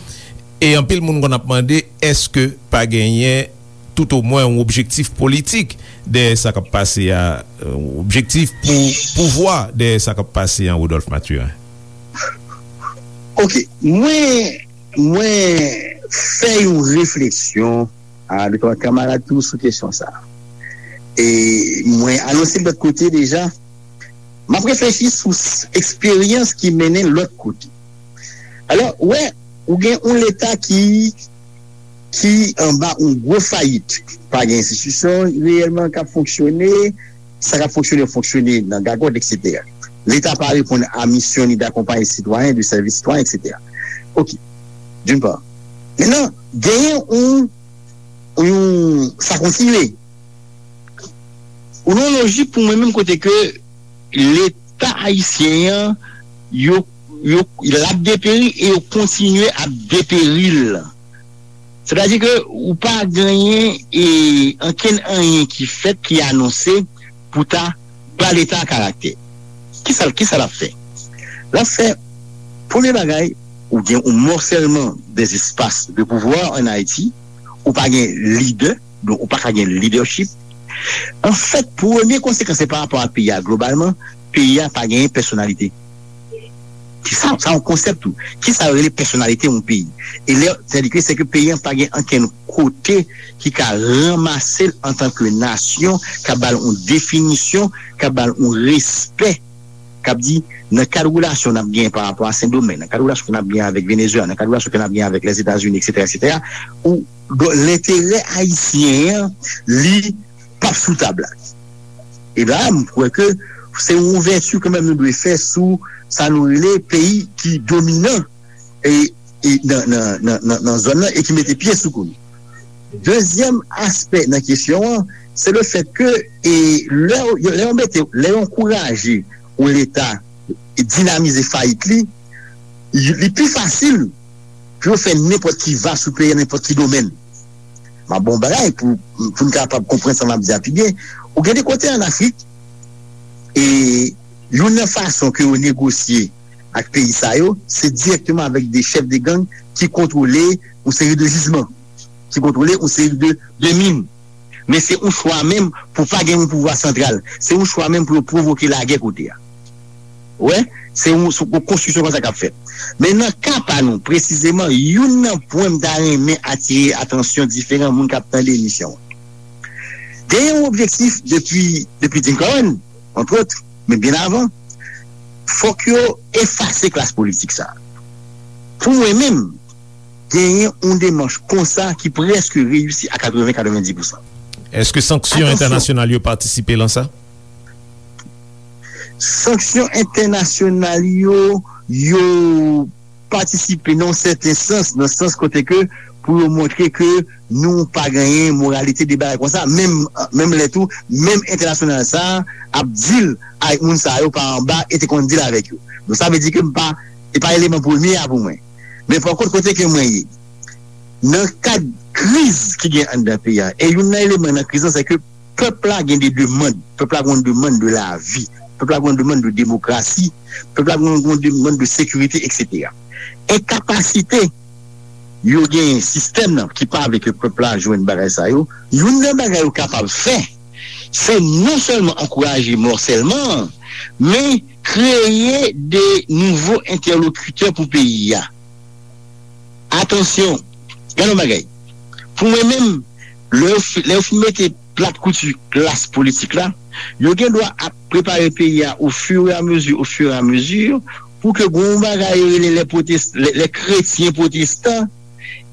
E anpil moun konn ap mande, èske pa genyen toutomwen yon objektif politik dèyè sa k ap pase a, eh, yon objektif pou pouvwa dèyè sa k ap pase an, Rodolphe Mathurin? Ok, mwen, mwen fè yon refleksyon a de twa kanmarad tou sou kesyon sa a. E mwen anonse lòt kote deja, m ap reflechi sou s-, eksperyans ki mennen lòt kote. Alò, ou wè, ou gen yon Leta ki, ki anba yon gwo fayit. Pa gen enstitisyon reyèlman k ap fonksyone, sa k ap fonksyone, fonksyone nan gagòt, etsetera. Leta pa reponn a misyon li d'akonpaye sitwayen, de sèvi sitwayen, etsetera. Ok, d'une part. Mentnan, genyen yon, yon, sa kontinye. Ou nan yon lojik pou mwen menm kote ke Leta ayisyen an, yo, yo, l ap deperi e yo kontinye ap deperi l. Sètadi ke ou pa genyen, e, ankenn anyen ki fèt, ki anonse pou ta ba Leta a karaktè. Kisa, kisa l ap fè? L ap fè, premye bagay, ou gen yon mòsèlman des espaces de pouvoir en Haïti, ou pa gen lidè, donk ou pa ka gen leadership. Anfèt, premye konsekans se pa rapò a peyi a globalman, peyi a pa genyen pèsonalite. Ki sa, sa yon konsèp tou. Ki sa yo rele pèsonalite yon peyi? E lè, sètadi ke, se ke peyi an pa gen ankenn kote ki ka ranmase l antanke nasyon, ka ba l yon definisyon, ka ba l yon respè, k ap di, nan kad relasyon n ap genyen pa rapò a Sendomeng, nan kad relasyon ke n ap genyen avèk Venezuela, nan kad relasyon ke n ap genyen avèk Lèzetazini, etsetera, etsetera, ou, donk, lenterè ayisyen an, li p ap sou tab la. E la, m kwè ke se yon ouvèti kanmenm nou dwe fè sou sa nou rele peyi ki dominan e, e nan, nan, nan, nan, nan zòn nan e ki mete pye sou kou nou. Dezyèm aspè nan kesyon an, se le fèt ke e, lè, yo- lè yo mete, lè yo ankouraje yon Leta dinamize fayit li, li pi fasil pou yo fè nenpòt ki va sou peyi an, nenpòt ki domèn. M ap bon bagay pou, pou n kapab konprann sa m ap di a pi byen. Ou gen de kote ann Afrik, e youn nan fason ke yo negosye ak peyi sa yo, se dirèkteman avèk de chèf de gang ki kontwole yon seri de jijman, ki kontwole yon seri de, de min. Men se yon chwa menm pou pa gen yon pouvwa santral. Se yon chwa menm pou yo pwovoke lagè kote a. Ou wè, se yon, se yon konstriksyon konsa k ap fèt. Men nan ka pa nou, presizeman, youn nan pwen m ta renmen atire atansyon diferan moun k ap tande emisyon an. Gen yon objektif depi, depi Jim Carroll, antrot, men byen avan, fòk yo efase klas politik sa a. Pou mwen menm, genyen yon demach konsa ki prèske reyisi a katreven, katrevendiz pousan. Èske sanksyon entènasyonal yo patisipe lan sa? Sanksyon entènasyonal yo, yo patisipe nan yon sèten sans, nan sans kote ke pou yo montre ke nou pa genyen moralite de bagay konsa, menm, menm lè tou, menm entènasyonal sa a ap deal avèk moun sa yo pa anba e te konn deal avèk yo. Donk sa vle di ke m pa, e pa eleman premye a pou mwen. Men pa kont kote ke mwen ye, nan kad kriz ki gen anndan peyi a, e youn nan eleman nan kriz lan, se ke pèp la gen de demann. Pèp la gen yon demann de lavi. Pèp la gen yon demann de demokrasi. Pèp la gen yon demann de sekirite, et cetera. Enkapasite yo genyen sistèm nan ki pa vle ke pèp la jwenn bagay sa yo, youn nan bagay yo kapab fè, se non sèlman ankouraje mòsèlman an, men kreye de nouvo entèlokitè pou peyi a. Atansyon, gade yon bagay. Pou mwen menm, lè yo fi- lè yo fin mete plat kouti klas politik la, yo gen dwa ap prepare peyi a au fur et à mesure, au fur et à mesure, pou ke gon bagay yo rele les protest- les, les chrétiens protestants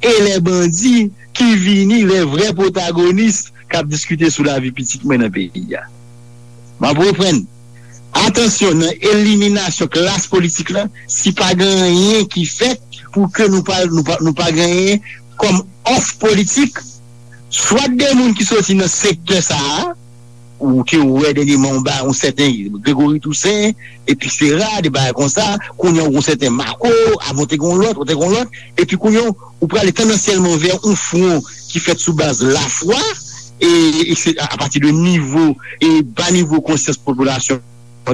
et les bandits ki vini, les vrais protagonistes k ap diskite sou lavi pitit mwen nan peyi a. M ap reprann. Atansyon, nan eliminasyon klas politik la, si pa gen anyen ki fèt pou ke nou pa, nou pa, nou pa genyen kòm òf politik, swa de moun ki soti nan sektè sa a, ou ke ou wè dènyèman ou ba yon sèten Gregory Toussaint, etsetera, de bagay konsa, kounye a ou gon sèten Marco, avan ou te gon lòt, ou te gon lòt, epi kounye a ou prale tandansyèlman vè yon fwon ki fèt sou baz lafwa, e, e se a, apati de nivo, e ba nivo konsyans popilasyon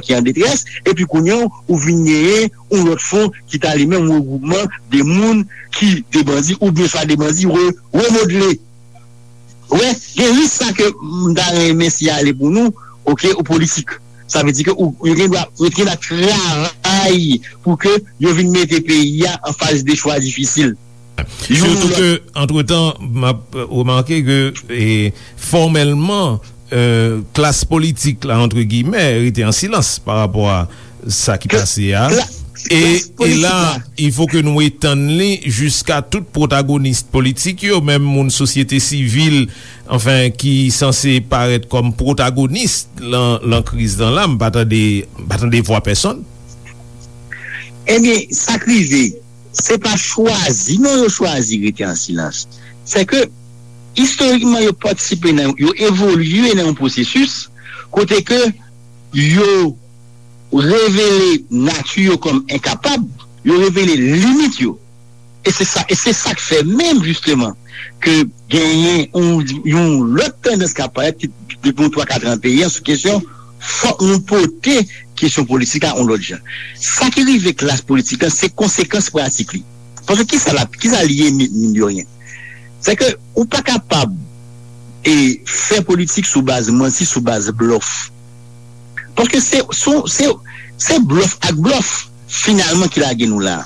ki an detrès, epi kounye a ou vin genyen yon lòt fwon ki ta li menm regwoupman de moun ki de bandi, oubyen swa de bandi re, remodle. Ou wè, gen risk sa ke m ta renmen siyale pou nou, oke, ou politik. Sa vle di ke ou, yo gen dwa, yo gen dwa travay pou ke yo vin mete peyi a an faz de chwa difisil. Youn Sitou lòt. Ke, antretan, m ap remake ke, e, fòmèlman, e, klas politik la, antre giyimè, rete an silans pa rapò a sa ki Ke- pase a. kla- E, klas e politik la, la. Il faut que nou etann li jiska tout pwotagonis politik yo, menm moun sosyete sivil, anfen, ki sanse parèt kòm pwotagonis lan, lan kriz lan la, m pa tande, m pa tande vwa pèsonn. Ebyen, sa k rive, se pa chwazi, non, yo chwazi rete an silans. Se ke, istorikman, yo patisipe nan, yo evolye nan yon pwosesis kote ke yo revele nati yo kòm enkapab, yo revele limit yo. E se sa, e se sa k fè menm, jisteman, ke genyen yon, yon lòt tandans k ap parèt ki, depi yon twa kat an peyi an sou kesyon, fòk nou pote kesyon politik la yon lòt jan. Sa ki rive klas politik la, se konsekans pratik li. Paske kisa l ap, kisa l ye, mi- mine de rien? Se ke ou pa kapab e fè politik sou baz manti, sou baz blòf. Paske se, se, se, se blòf ak blòf, finalman, ki lage nou la.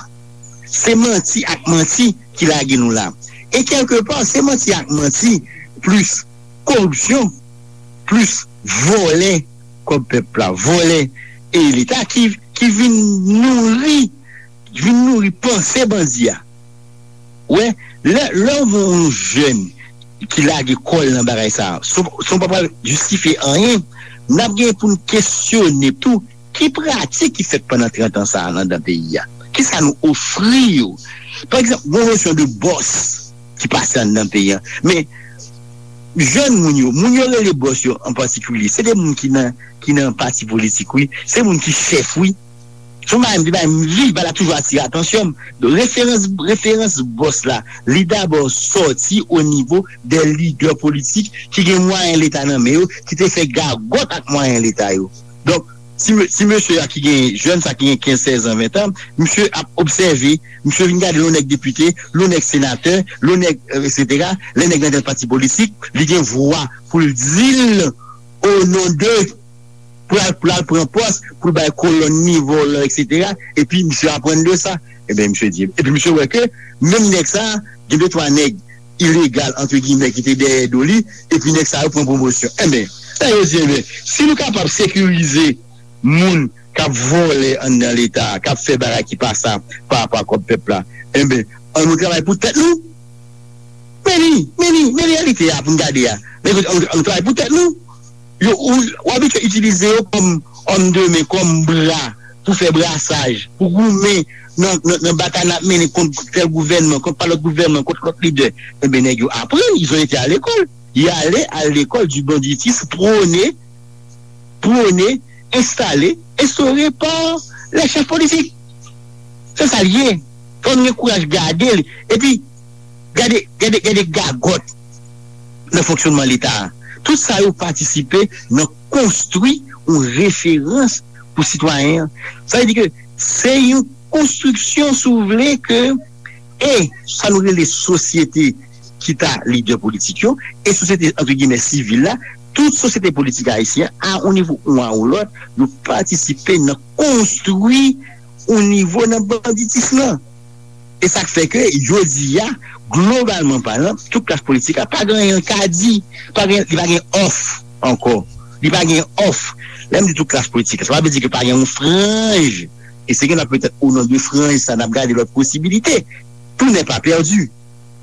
Se manti ak manti ki lage nou la. E kèlkepa, se manti ak manti, plis koripsyon, plis vòlè kòb pèp la, vòlè e Leta ki, ki vin nouri, vin nouri panse bandi a. Wè, lè, lè w yon jèn ki lage kò l nan bagay sa a, si w, si w pa pral jistifye anyen, n ap gen pou n kesyone tou ki pratik ki fèt pandan trant an sa a anndan peyi a. Kisa nou ofri yo? Pa egzanp, gon nosyon de bòs ki pase anndan peyi a. Men, jèn moun yo, moun yo rele bòs yo an patikilye, se de moun ki nan, ki nan pati politik, wi. Se moun ki chèf, wi. Se yon bagay m te bay m vi, bagay la toujou atire atansyon m. Donk, referans, referans bòs la, li dabò sòti o nivo de lidè politik ki gen mwayen Leta nan men yo, ki te fè gagòt ak mwayen Leta yo. Donk, ti, ti mesye a ki gen, jèn sa ki gen kenz, sèz an, ven an, misye ap obsève, misye vin gade lè yon nèg depite, lè yon nèg senatè, lè yon nèg, euh, et cetera, lè nèg nan tèt pati politik, li gen vwa pou l di l o non de pou l al, pou l al pran pòs, pou l bay kolòn ni vòlò, et cetera. Epi misye aprann de sa. Ebyen, misye di, epi misye wè ke menm nèg sa, gen de twa nèg ilegal, antre gimè, ki te dèyè do li, epi nèg sa yo pran pwomosyon. Ebyen, sa yo di, ebyen, si nou kapab sekirize moun k ap vòlè anndan Leta a, k ap fè bagay ki pa sa pa rapò ak kòb pèp la, ebyen, an nou travay pou tèt nou. Men li, men li, men reyalite a pou n gade a. Men kote, an, an travay pou tèt nou. Yo, ou, ou abitye itilize yo kòm òm de men, kòm bra, pou fè brasaj, pou goumen nan, nan, nan batay n ap mennen kont tèl gouvènman, kont pa lòt gouvènman, kont lòt lidè. Enben, nèg yo aprann, ils ont été à l'école. Y aller à l'école du banditisme, prôné, prôné, installé, instauré par les chefs politiques. Se sa l ye. Fò nou gen kouraj gade l. Epi, gade, gade, gade gagòt nan fonksyonman Leta a. Tout sa yo patisipe nan konstwi yon referans pou sitwayen an. Sa vle di ke se yon konstriksyon, si w vle, ke, e sa nou rele sosyete, ki ta lidè politik yo, e sosyete, antre gimè, sivil la, tout sosyete politik ayisyen, a yon nivo ou a yon lòt, yo patisipe nan konstwi yon nivo nan banditis lan. E sa k fè ke, jodi a, globalman palan, tout klas politik la pa gen anyen l ka di, pa gen, li pa gen òf ankò. Li pa gen òf. Lè m di tout klas politik la, sa pa vle di ke pa gen yon franj. E se gen la petèt o non de franj sa, n ap gade lòt posibilite. Tout n'est pas perdu.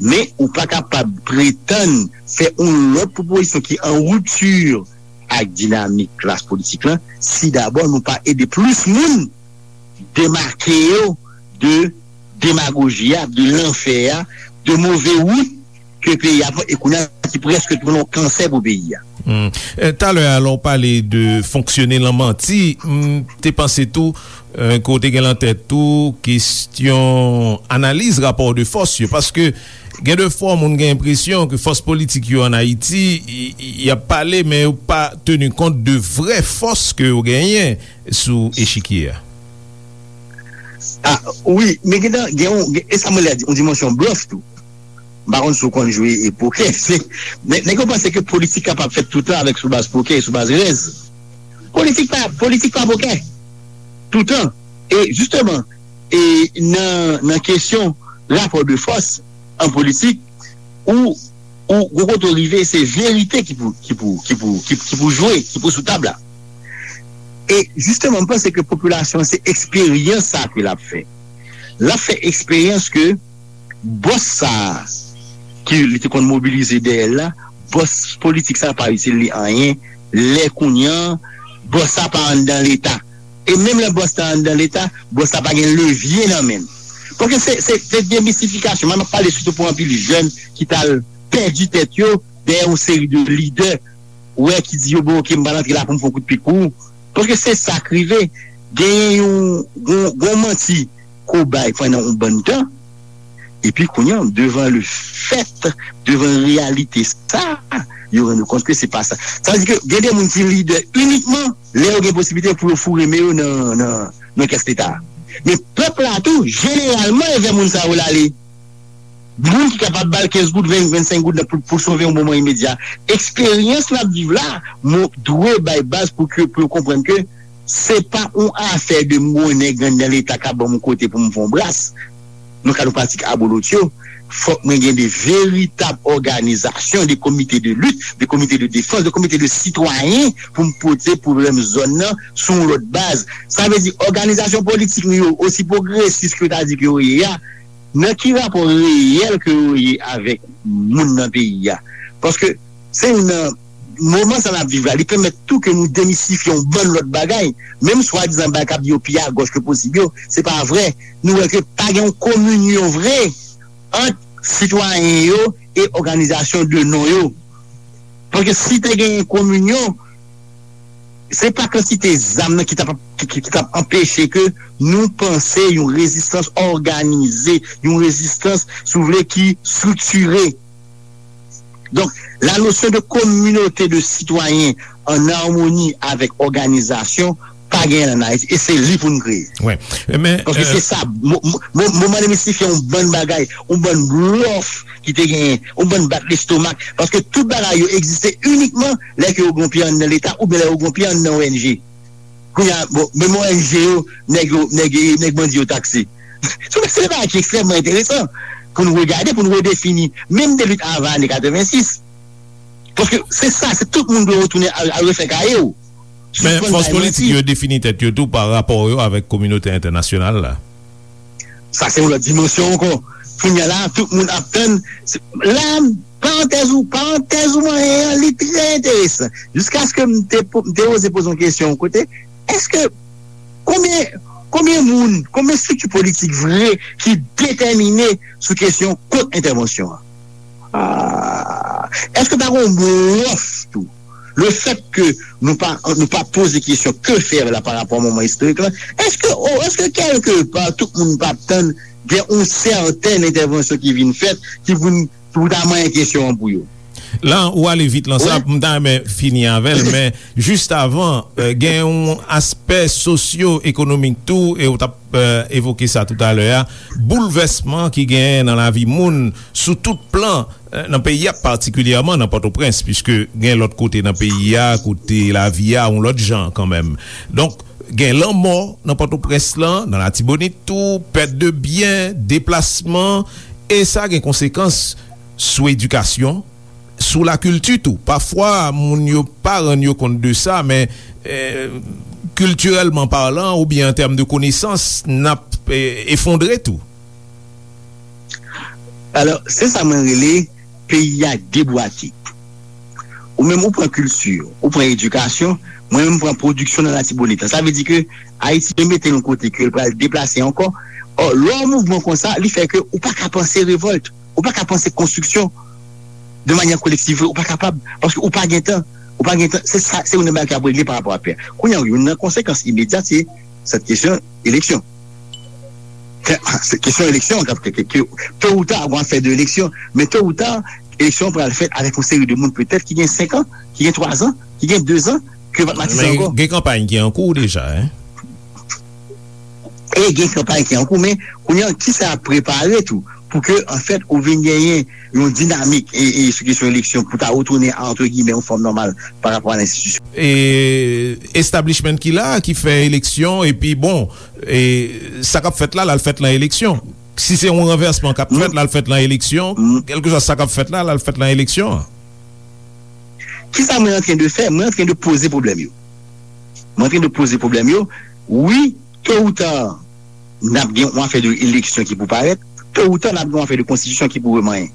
Men ou pa kapab pretann fè yon lòt pwopozisyon ki an ripti ak dinamik klas politik lan, si dabò nou pa ede plis moun demake yo de demagoji a, de lanfè a, de move wout ke peyi a pran, e kounye a ki prèske tounen yon kansè pou peyi a. Hmm. Eh, talè a, lè w pale de fonksyone lan manti, m te panse tou, eh, ke w te gen lan tèt tou kesyon analiz rapò de fòs yo, paske gen de fwa moun gen enpresyon ke fòs politik yo ann Ayiti, y, y, y ap pale, men yo pa teni kont de vrè fòs ke yo genyen sou echikye a. Ah, wi, men gen, gen, gen, e sa mwen lè di, yon dimansyon blòf tou. M pa konn si w konn jwe e pokè. Se, nèg, nèg yo panse ke politik kapab fèt toutan avèk sou baz pokè e sou baz rèz. Politik pa, politik pa pokè. Toutan. E jisteman, e nan, nan kesyon rapò de fòs an politik, ou, ou, gwo kote w rive, se verite ki pou, ki pou, ki pou, ki, ki pou jwe, ki pou sou tab la. E jisteman, m panse ke popilasyon an, se eksperyans sa ke l ap fè. L ap fè eksperyans ke bòs sa a, ke li te konn mobilize dèyè l la, bòs politik sa a pa itil li anyen, lè kounye a, bòs sa a pa anndan Leta. E menm lè bòs la anndan Leta, bòs la pa gen levye nan men l. Paske se, se, se demisifikasyon. Mwen, m ap pale sitou pou anpil jèn ki t al pèdi tèt yo dèyè yon seri de lidè, wè, ki di yo, bon, oke, m pral antre la pou m fè yon kout pik pou ou. Paske se sa k rive. Genyen yon, yon, yon manti ke w bay pandan yon bann tan, epi kounye a, devan le fèt, devan reyalite sa, yo rann yo kont ke se pa sa. Sa vle di ke gen de moun ki lidè inikman lè yo gen posiblite pou yo foure men yo nan, nan, nan kès Leta a. Men pèp la tou, jeneralman, e vè moun sa yo l ale. Moun ki kapab ba l kenz goud, ven, vennsenk goud nan pou, pou sove yon moman imedya. Eksperyans n ap viv la, mwen dwe bay baz pou ke, pou yo konprann ke se pa yon afè de m gon nèg anndan Leta k ap ban m yon kote pou m fè yon bras. Nan kad yon pratik abolotyo, fòk mwen gen de veritab òganizasyon, de komite de lit, de komite de defans, de komite de sitwayen pou m pote pwoblèm zòn nan sou yon lòt baz. Sa vle di, òganizasyon politik nou yo, osi pwogresis ke yo ta di ke yo ye a, nan ki rapò reyèl ke yo ye avèk moun nan peyi a? Paske se youn nan moman sa n ap viv la, li pèmèt tou ke nou demistifye yon bann lòt bagay. Menm swadizan bagay k ap di yo pi agòch ke posib yo, se pa vre. Nou wè ke pa gen yon kominyon vre ant sitwayen yo e òganizasyon de non yo. Paske si te genyen kominyon, se pa kantite zam nan ki t ap, ki, ki, ki t ap anpeche ke nou panse yon rezistans òganize, yon rezistans, si w vle, ki estriktire. Donk, la notion de communauté de citoyens en harmonie avec organisation pa genyen an Ayiti, e se li pou n kreye. Wi. Men, paske se sa, mo, mo, mo, moman demistifye yon bann bagay, yon bann blòf ki te genyen, yon bann bat lestomak, paske tout bagay yo egziste inikman lè ke yo gen pye anndan Leta oubyen lè yo gen pye anndan O N G. Kounye a, bon, menm O N G yo, nèg yo, nèg, nèg bandi yo takse. Se, se yon bagay ki ekstrèmman enteresan pou nou regade, pou nou redefini, menm de lit avan ane katrevensis. Paske se sa, se tout moun dwe retounen al, al refè kaye w. Men fòs politik yo defini tèt yo tou pa rapò yo avèk kominote entènasyonal la. Sa se yon lòt dimansyon ankò. Kounye a la, tout moun ap tann. La, parantèz ou, parantèz ou manyen an, li trè enteresan. Jiskaske m te, po- m te oze poze yon kesyon yon kote, èske konbyen, konbyen moun, konbyen estrikti politik vre ki detèmine sou kesyon kont entèvansyon an? Ah, èske pa gen yon blòf tou? Le fait que nou pa, nou pa poze kesyon ke fè la pa rapò a moman istorik la, èske, oh, èske kèlke pa tout moun pa ap tann gen yon sèten entèvansyon ki vin fèt, ki vin, pou ta manyen kesyon an pou yo? La, ou ale vit lan sa, m ta renmen fini avè l, men jis avan, euh, gen yon aspè sosyo-ekonomik tou, e ou t ap, euh, evoke sa toutalè a, boulvèsman ki genyen nan lavi moun sou tout plan, euh, nan peyi a, patikilyèman nan Pòtoprens, piske gen lòt kote nan peyi a, kote lavi a yon lòt jan kanmenm. Donk, gen lanmò nan Pòtoprens lan, nan Latibonit tou, pèt de byen, deplasman, e sa gen konsekans sou edikasyon, sou lakilti tou. Pafwa, moun yo pa rann yo kont de sa, men, eh, kiltirèlman palan, oubyen an tèm de konesans, n ap, eh, efondre tou. Alò, se sa mwen rele peyi a debwate. Ou menm, ou pran kilti, ou pran edikasyon, mwen menm, m pran pwodiksyon nan Latibonit la. Sa vle di ke Ayiti mete l yon kote ke l pral deplase ankò. Ò, lè yon mouvman konsa, li fè ke ou pa ka panse revòlt, ou pa ka panse konstriksyon de manyè kolektiv, ou pa kapab, paske ou pa gen tan, ou pa gen tan, se sa, se youn nan bagay ki ap regle pa rapò a pè. Kounye a, youn nan konsekans imedyat, se sèt kesyon eleksyon. Se, se kesyon eleksyon, ke, ke, ke, ke, to ou ta, gon afè de eleksyon, men to ou ta, eleksyon pral fèt avèk yon seri de moun petèt ki gen senk an, ki gen twa zan, ki gen de zan, ke yo pa t matisan ankò. Gen kanpay ki an kou deja, en. E gen kanpay ki an kou, men kounye a, kisa ap prepare tou pou ke, anfèt, ou vin genyen yon dinamik e, e sou kesyon eleksyon pou ta retounen a, antre giyimè, yon fòm nòmal pa rapò a lenstitisyon? E establishment ki la, ki fè eleksyon, epi bon, e sa k ap fèt la, l al fèt lan eleksyon. Si se yon ranvèsman k ap fèt, l al fèt lan eleksyon. Kèlkeswa sa k ap fèt la, l al fèt lan eleksyon an. Kisa mwen antren de fè? Mwen antren de poze pwoblèm yo. Mwen antren de poze pwoblèm yo. Wi, to ou ta, n ap gen yon afè de eleksyon ki pou parèt. To ou ta, n ap gen yon afè de konstitisyon ki pou remanyen.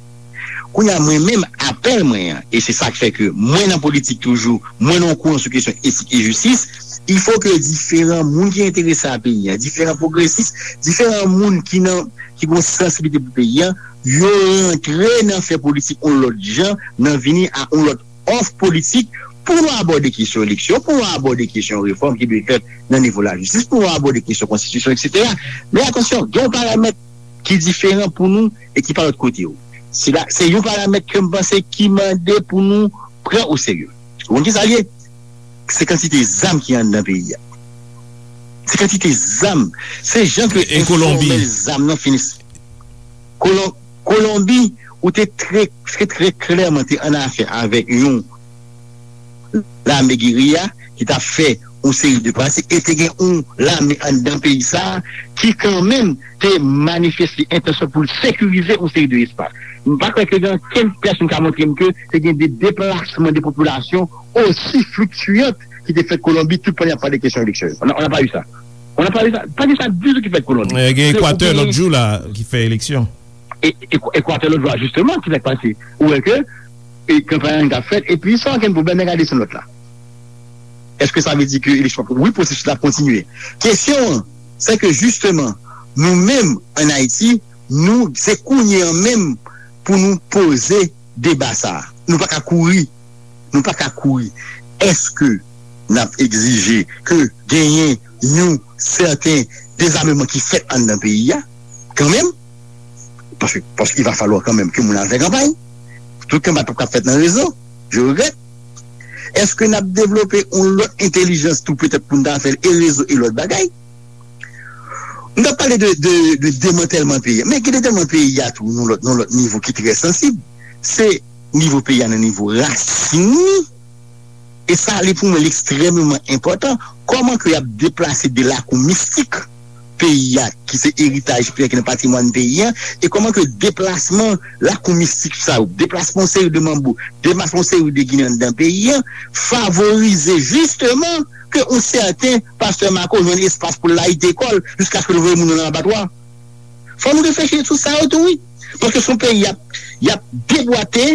Kounye a, mwen menm, apèl mwen an, e se sa k fè ke mwen nan politik toujou, mwen nan yon kouran sou kesyon etik e jistis, il faut que diferan moun ki enterese a peyi a, diferan pwogresis, diferan moun ki nan, ki gen yon sansibilite pou peyi a, yo rantre nan fè politik yon lòt jan, nan vini a yon lòt òf politik pou nou abòde kesyon eleksyon, pou nou abòde kesyon refòm ki dwe fèt nan nivo lajistis, pou nou abòde kesyon konstitisyon, etsetera. Men atansyon, gen yon paramèt ki diferan pou nou e ki pa lòt kote yo. Se la, se yon paramèt ke m panse ki mande pou nou pran o serye. Ou konn kisa l ye? Se kantite zam ki anndan peyi a. Se kantite zam. Se jan ke enfòmèl zam nan fini. Kolon-, Kolonbi, ou te trè, trè, trè klèman te an afè avèk yon lame geriya ki t ap fè yon seri de pratik, e te gen yon lame anndan peyi sa a ki kanmenm te manifeste entansyon pou l sekirize yon seri de espas. M pa kwè ke gen okenn pèsonn ka montre m ke te gen de deplasman de popilasyon osi fliktiyan ki te fèt Kolonbi tout pandan y ap pale kesyon eleksyon yo. On a, on a pas eu ça. On a pas eu ça. Pa gen sa ditou ki fèt Kolonbi. Eh, gen Ekwatè lòt jou la ki fè eleksyon. E, e, Ekwatè lòt jou la, jisteman, ki sa k pase? Ou wè ke e kanpay an t ap fèt, epi san okenn pwoblèm, nèg la desann lòt la. Èske sa vle di ke eleksyon ap, wi, pwosesis la ap kontinye. Kesyon an, se ke jisteman, nou menm, ann Ayiti, nou, se kounye an menm pou nou poze deba sa a. Nou pa ka kouri. Nou pa ka kouri. Èske n ap egzije ke genyen yon sèten dezameman ki fèt anndan peyi a, kanmenm? Paske, paske il va falloir kanmenm ke moun al fè kanpay. Tout kanpay p ap ka fèt nan rezo. Je regrèt. Èske n ap devlope yon lòt entèlijans tou, petèt, pou n ta fè l, e rezo e lòt bagay? Nou t ap pale de, de, de demantèlman peyi a. Men gen demantèlman peyi a tou, nan lòt, nan lòt nivo ki trè sansib. Se nivo peyi a, nan nivo rasin li. E sa, li, pou mwen, li ekstrèmeman enpòtan. Kòman ke y ap deplase de lakou mistik peyi a, ki se eritaj peyi a, ki nan patrimwàn peyi a, e kòman ke deplasman lakou mistik sa yo, deplasman yon seri de manbo, deplasman yon seri de Ginen anndan peyi a, favorize jisteman ke yon sèten pastè Marco jwenn espas pou l layite kò l jiskaske l voye moun nan abatwa. Fò nou reflechi sou sa yo tou, wi. Paske se yon peyi y ap, y ap debwate,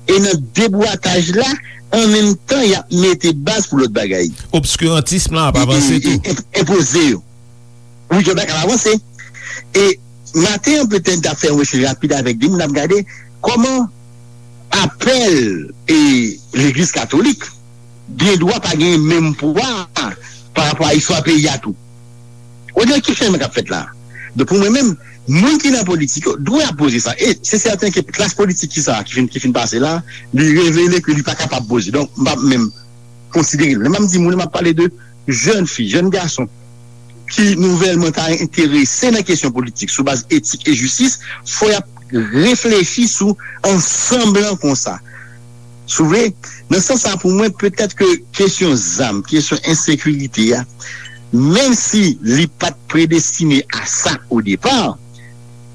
e nan debwataj la, an menm tan, y ap mete baz pou lòt bagay. Obskirantism lan ap avanse tou. E, e, e, enpoze yo. Wi, yo pa ka avanse. E maten an, petèt, n t ap fè yon echanj rapid avèk de moun, n ap gade kòman apèl e Legliz Katolik gen dwa pa gen menm pwa pa rapò a istwa peyi a tou. Ou di ki chanjman k ap fèt la? Donk, pou mwen menm, moun ki nan politik yo dwe ap poze sa. E se sèten ke klas politik ki sa, ki fin, ki fin pase la, li revele ke li pa kapab poze. Donk, m p ap menm konsidere l. Lè m ap di moun, m ap pale de jèn fi, jèn gason ki nouvèlman ta enterese nan kesyon politik sou baz etik e jistis, fò y ap reflechi sou ansanm lan konsa. Si w vle, nan sans sa, pou mwen, petèt ke kesyon zam, kesyon ensekirite a, menm si li pa t predestine a sa o depa,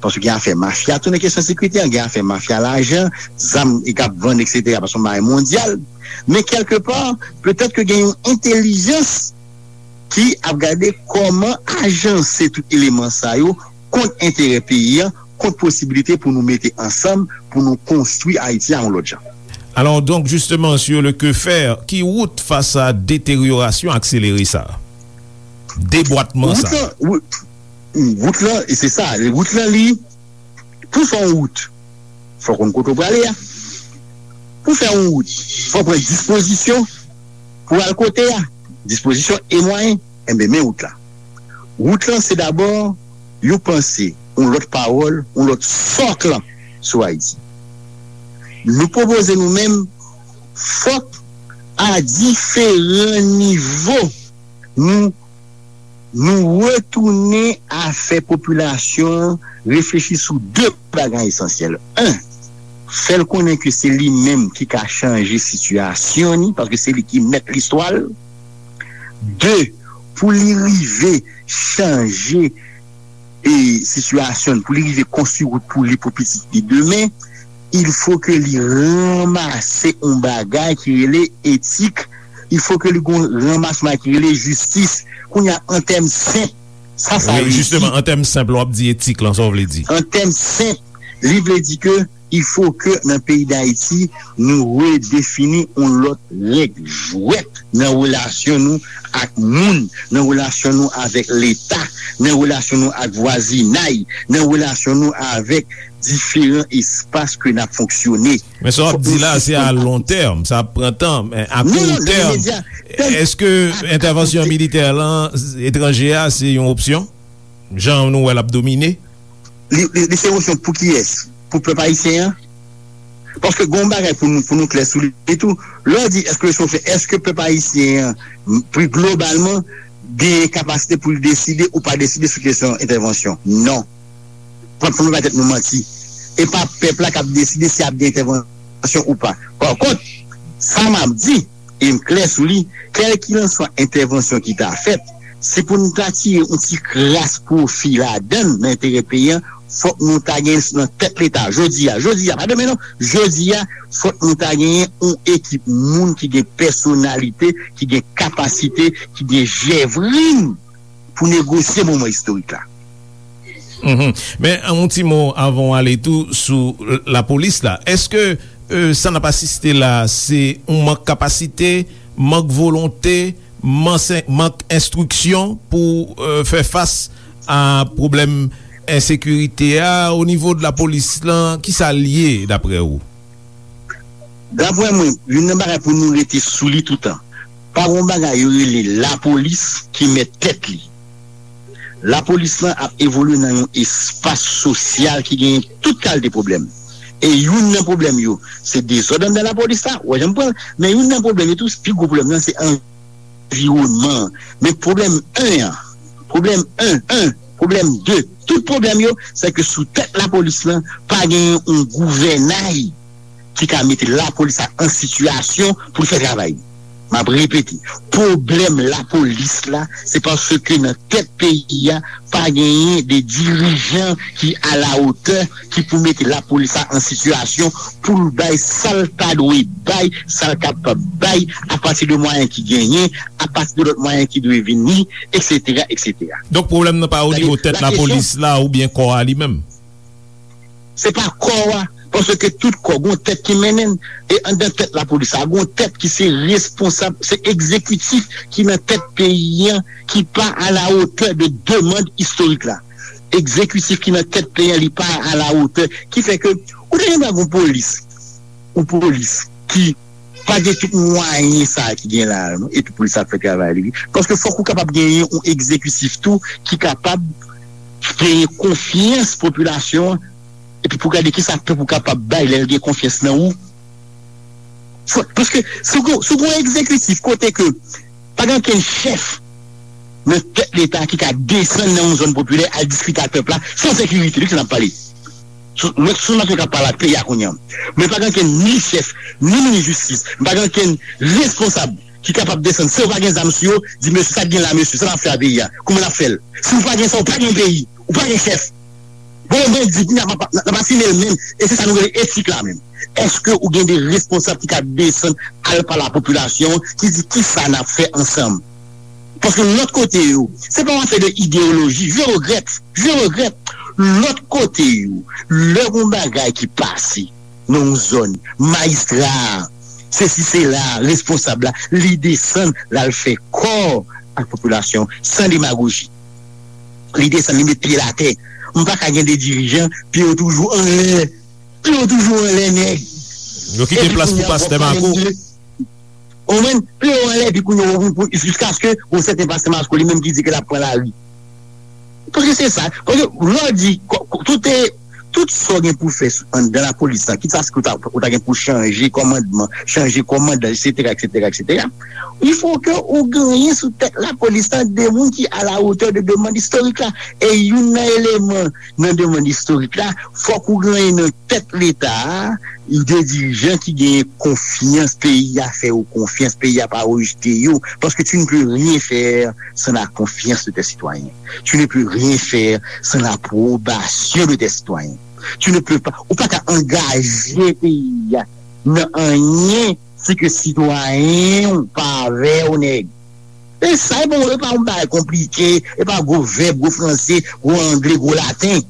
paske gen afè mafya tou nan kesyon sekirite a, gen afè mafya lajan, zam e k ap vann, etsetera, paske se yon bagay mondyal. Men kèlkepa, petèt ke gen yon entèlijans ki ap gade kòman ajanse tout eleman sa yo kont enterè peyi a, kont posibilite pou nou mete ansanm, pou nou konstwi Ayiti a yon lòt jan. Alors donc, justement, sur le que faire, ki wout fas a deteryorasyon akselere sa a? Debwatman sa a. Wout lan, wout, wout lan, e se sa, wout lan li, pou fè yon wout, fò konn kote w prale a. Pou fè yon wout, fò pran dispozisyon pou al kote a. Dispozisyon e mwayen, enben, men wout la. Wout lan, se dabò yon panse, yon lòt pawòl, yon lòt sòk lan sou Ayiti. Nou pwopoze nou menm, fòk a diferan nivo, nou, nou retounen a fè popilasyon an reflechi sou de bagay esansyèl. En, fè l konnen ke se li menm ki ka chanje sitiyasyon ni, paske se li ki mèt listwa l. De, pou li rive chanje e sitiyasyon l, pou li rive konstwi wout pou li, pou pitit li demen, il fo ke li ranmase yon bagay ki rele etik, il fo ke li gon ranmase yon bagay ki rele jistis. Kounye a, an tèm senp, sa, sa vle di? Wi, jisteman, an tèm senp, lè w ap di etik lan, sa w vle di? An tèm senp, li vle di ke il fo ke nan peyi Dayiti, nou redefini yon lòt règ jwèt nan relasyon nou ak moun, nan relasyon nou avèk Leta, nan relasyon nou ak vwazinay, nan relasyon nou avèk diferan espas ke n ap fonksyone. Men sa w ap di la, se a lon tèm, sa ap pran tan, men a kou tèm, èske entèvansyon militè lan, etranje a, se yon opsyon? Jan nou wè l ap domine? Li, li, li se yon opsyon pou kiyès? Pou pèp ayisyen an? Paske gen yon bagay pou nou, pou nou klè sou li tou. Lè w di èske se yon opsyon, èske pèp ayisyen an, m, pi globalman, gen kapasite pou l deside ou pa deside sou kesyon entèvansyon? Non. Pran, pran nou bay tèt nou manti. E pa pèp la k ap deside si ap gen entèvansyon ou pa. Pa kont, sa m ap di, e m klè sou li, kèlkilanswa entèvansyon ki ta fèt, si pou n ta tire yon ti kras pwofi ladan l, nan enterè peyi a, fòk nou ta gen nan tèt Leta, jodi a, jodi a, pa demen non, jodi a, fòk nou ta genyen yon ekip moun ki gen pèsonalite, ki gen kapasite, ki gen jèvrin pou negosye moman istorik la. Mhm. Men, yon ti mo avan w ale tou sou l-, lapolis la. Èske, e, sa n ap asiste la, se yon mank kapasite, mank volonte, mank, mank enstriksyon pou, e, fè fas a pwoblèm ensekirite a o nivo de lapolis lan? Kisa l ye, daprè ou? Daprè mwen, youn nan bagay pou nou rete sou li toutan, pa gen yon bagay yo rele lapolis ki mèt tèt li. Lapolis lan ap evolye nan yon espas sosyal ki genyen tout kalite pwoblèm. E youn nan pwoblèm yo, se dezòd anndan lapolis la, w wè jan m pran l, men youn nan pwoblèm yo tou, pi gwo pwoblèm nan, se anviwònman an. Men pwoblèm en an, pwoblèm en, en, pwoblèm de, tout pwoblèm yo, se ke sou tèt lapolis lan, pa genyen yon gouvènay ki ka mete lapolis la an sitiyasyon pou l fè travay li. M ap repete, pwoblèm lapolis la, se paske nan tèt peyi a, pa genyen de dirijan ki alawotè, ki pou mete lapolis la an sitiyasyon pou l bay sa l ta dwe bay, sa l kapab bay, apati de mwayen ki genyen, apati de lòt mwayen ki dwe vini, etsetera, etsetera. Donk, pwoblèm nan pa o nivo tèt lapolis la oubyen kò a li menm? Se pa kò a, paske tout kò gon tèt ki mennen l. E anndan tèt lapolis la, gon tèt ki se responsab, se egzekitif ki nan tèt peyi an, ki pa alawotè de demann istorik la. Egzekitif ki nan tèt peyi an, li pa alawotè. Ki fè ke, ou te gen dwa gon polis, ou polis ki pa gen tout mwayen sa a ki gen la a, non, epi polis la ap fè travay li, wi. Paske fòk ou kapab genyen yon egzekitif tou ki kapab genyen konfyans popilasyon an, epi pou gade kisa pèp ou kapab bay lè l gen konfyans nan ou. Fò, paske si w gon, si w gon egzekitif kote ke pa gen okenn chèf nan tèt Leta ki ka desann nan yon zòn popilè al diskite ak pèp la, se yon sekirite, wi, ke n ap pale. Sou, mwen, sou nèg k ap pale ak peyi a kounye a. Men pa gen okenn ni chèf, ni minis jistis, pa gen okenn responsab ki kapab desann, san yo pa gen zam sou yo, di, "Mesye, sa k gen la, mesye, sa n ap fè a peyi a? Kouman n ap fè l?" Si w pa gen sa, w pa gen peyi, w pa gen chèf. Bon, mwen di, n ap, n ap asime l menm, e se sa nou rele etik la menm. Èske ou gen de responsab ki ka desann al pale a popilasyon, ki di, "Kisa n ap fè ansanm?" Paske lòt kote yo, se pa yon afè de ideyoloji. Je regrèt, je regrèt. Lòt kote yo, lè gon bagay ki pase nan yon zòn, majistra a, sesi sela, responsab la, li desann, l al fè kò ak popilasyon, san demagoji. Li desann, li met pye l atè. M pa ka gen de dirijan, pye yo toujou anlè. Pye yo toujou anlè, nèg. Yo kite plas pou pastè Mako. Ou konprann? Pye yo anlè, epi kounye a, pou, pou, jiskaske yon sèten pastè Mako li menm ki di ke l ap pran lari. Paske se sa. Paske lè w di, ko-, ko-, tout e, tout sa w gen pou fè sou, anndan lapolis la, kit sa se ke w ta, ou ta gen pou chanje kòmandman, chanje kòmandan, etsetera, etsetera, etsetera, il faut que ou genyen sou tèt lapolis la de moun ki à la hauteur de demann istorik la. E youn nan eleman nan demann istorik la, fòk ou genyen nan tèt Leta a, de dirijan ki genyen konfyans, peyi a fè yo konfyans, peyi a pa rejte yo, paske tu ne peux rien faire sans la confiance de tes citoyens. Tu ne peux rien faire sans l'approbation de tes citoyens. Tu ne peux pas, ou pa ka angaje peyi a nan anyen si ke sitwayen w pa avè w, nèg. E sa, e pa, e pa yon bagay konplike, e pa gwo vèb, gwo franse, gwo angle, gwo laten.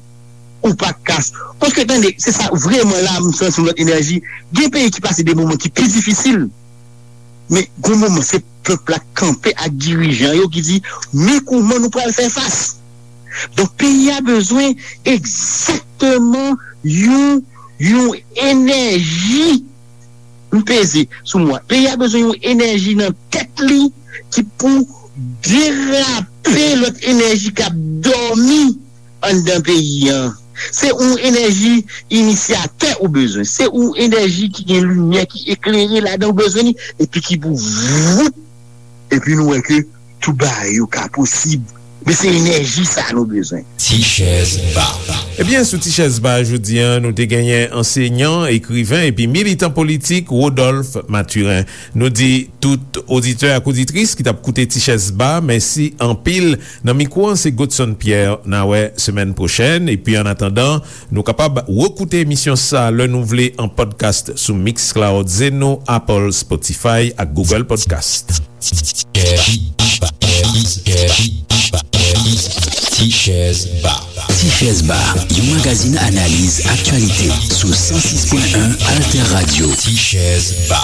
Ou pa ka. Paske, tande, se sa, vrèman, la, m santi yon lòt enèji. Gen peyi ki pase de moman ki pi difisil. Men, gon moman, se pèp la kanpe ak dirijan yo ki di, "Men kouman nou pral fè fas?" Donk, peyi a bezwen egzakteman yon, yon enèji. M peze sou mo a. Peyi a bezwen yon enèji nan tèt li ki pou derape lòt enèji k ap dòmi anndan peyi an. Se yon enèji inisyatè ou bezwen. Se yon enèji ki gen limyè, ki eklere ladan ou bezwen li, epi ki pou vout. Epi nou wè ke tout bagay yo ka posib. Men se enèji sa a nou bezwen. Ti chèz ba. Ebyen, sou Ti chèz ba jodi a, nou te genyen ansenyan, ekriven epi militan politik Rodolphe Mathurin. Nou di tout oditè ak oditris ki t ap koute Ti chèz ba, mèsi anpil. Nan mikwo an, se Godson Pierre. N a wè semèn pwochèn. Epi, annatandan, nou kapab rekoute emisyon sa a lè nou vle an podcast sou Mixcloud, Zeno, Apple, Spotify ak Google Podcast. Ti chèz ba. Ti chèz ba, yon magazin analiz aktyalite sou san sis pwen en Alter Radio. Ti chèz ba.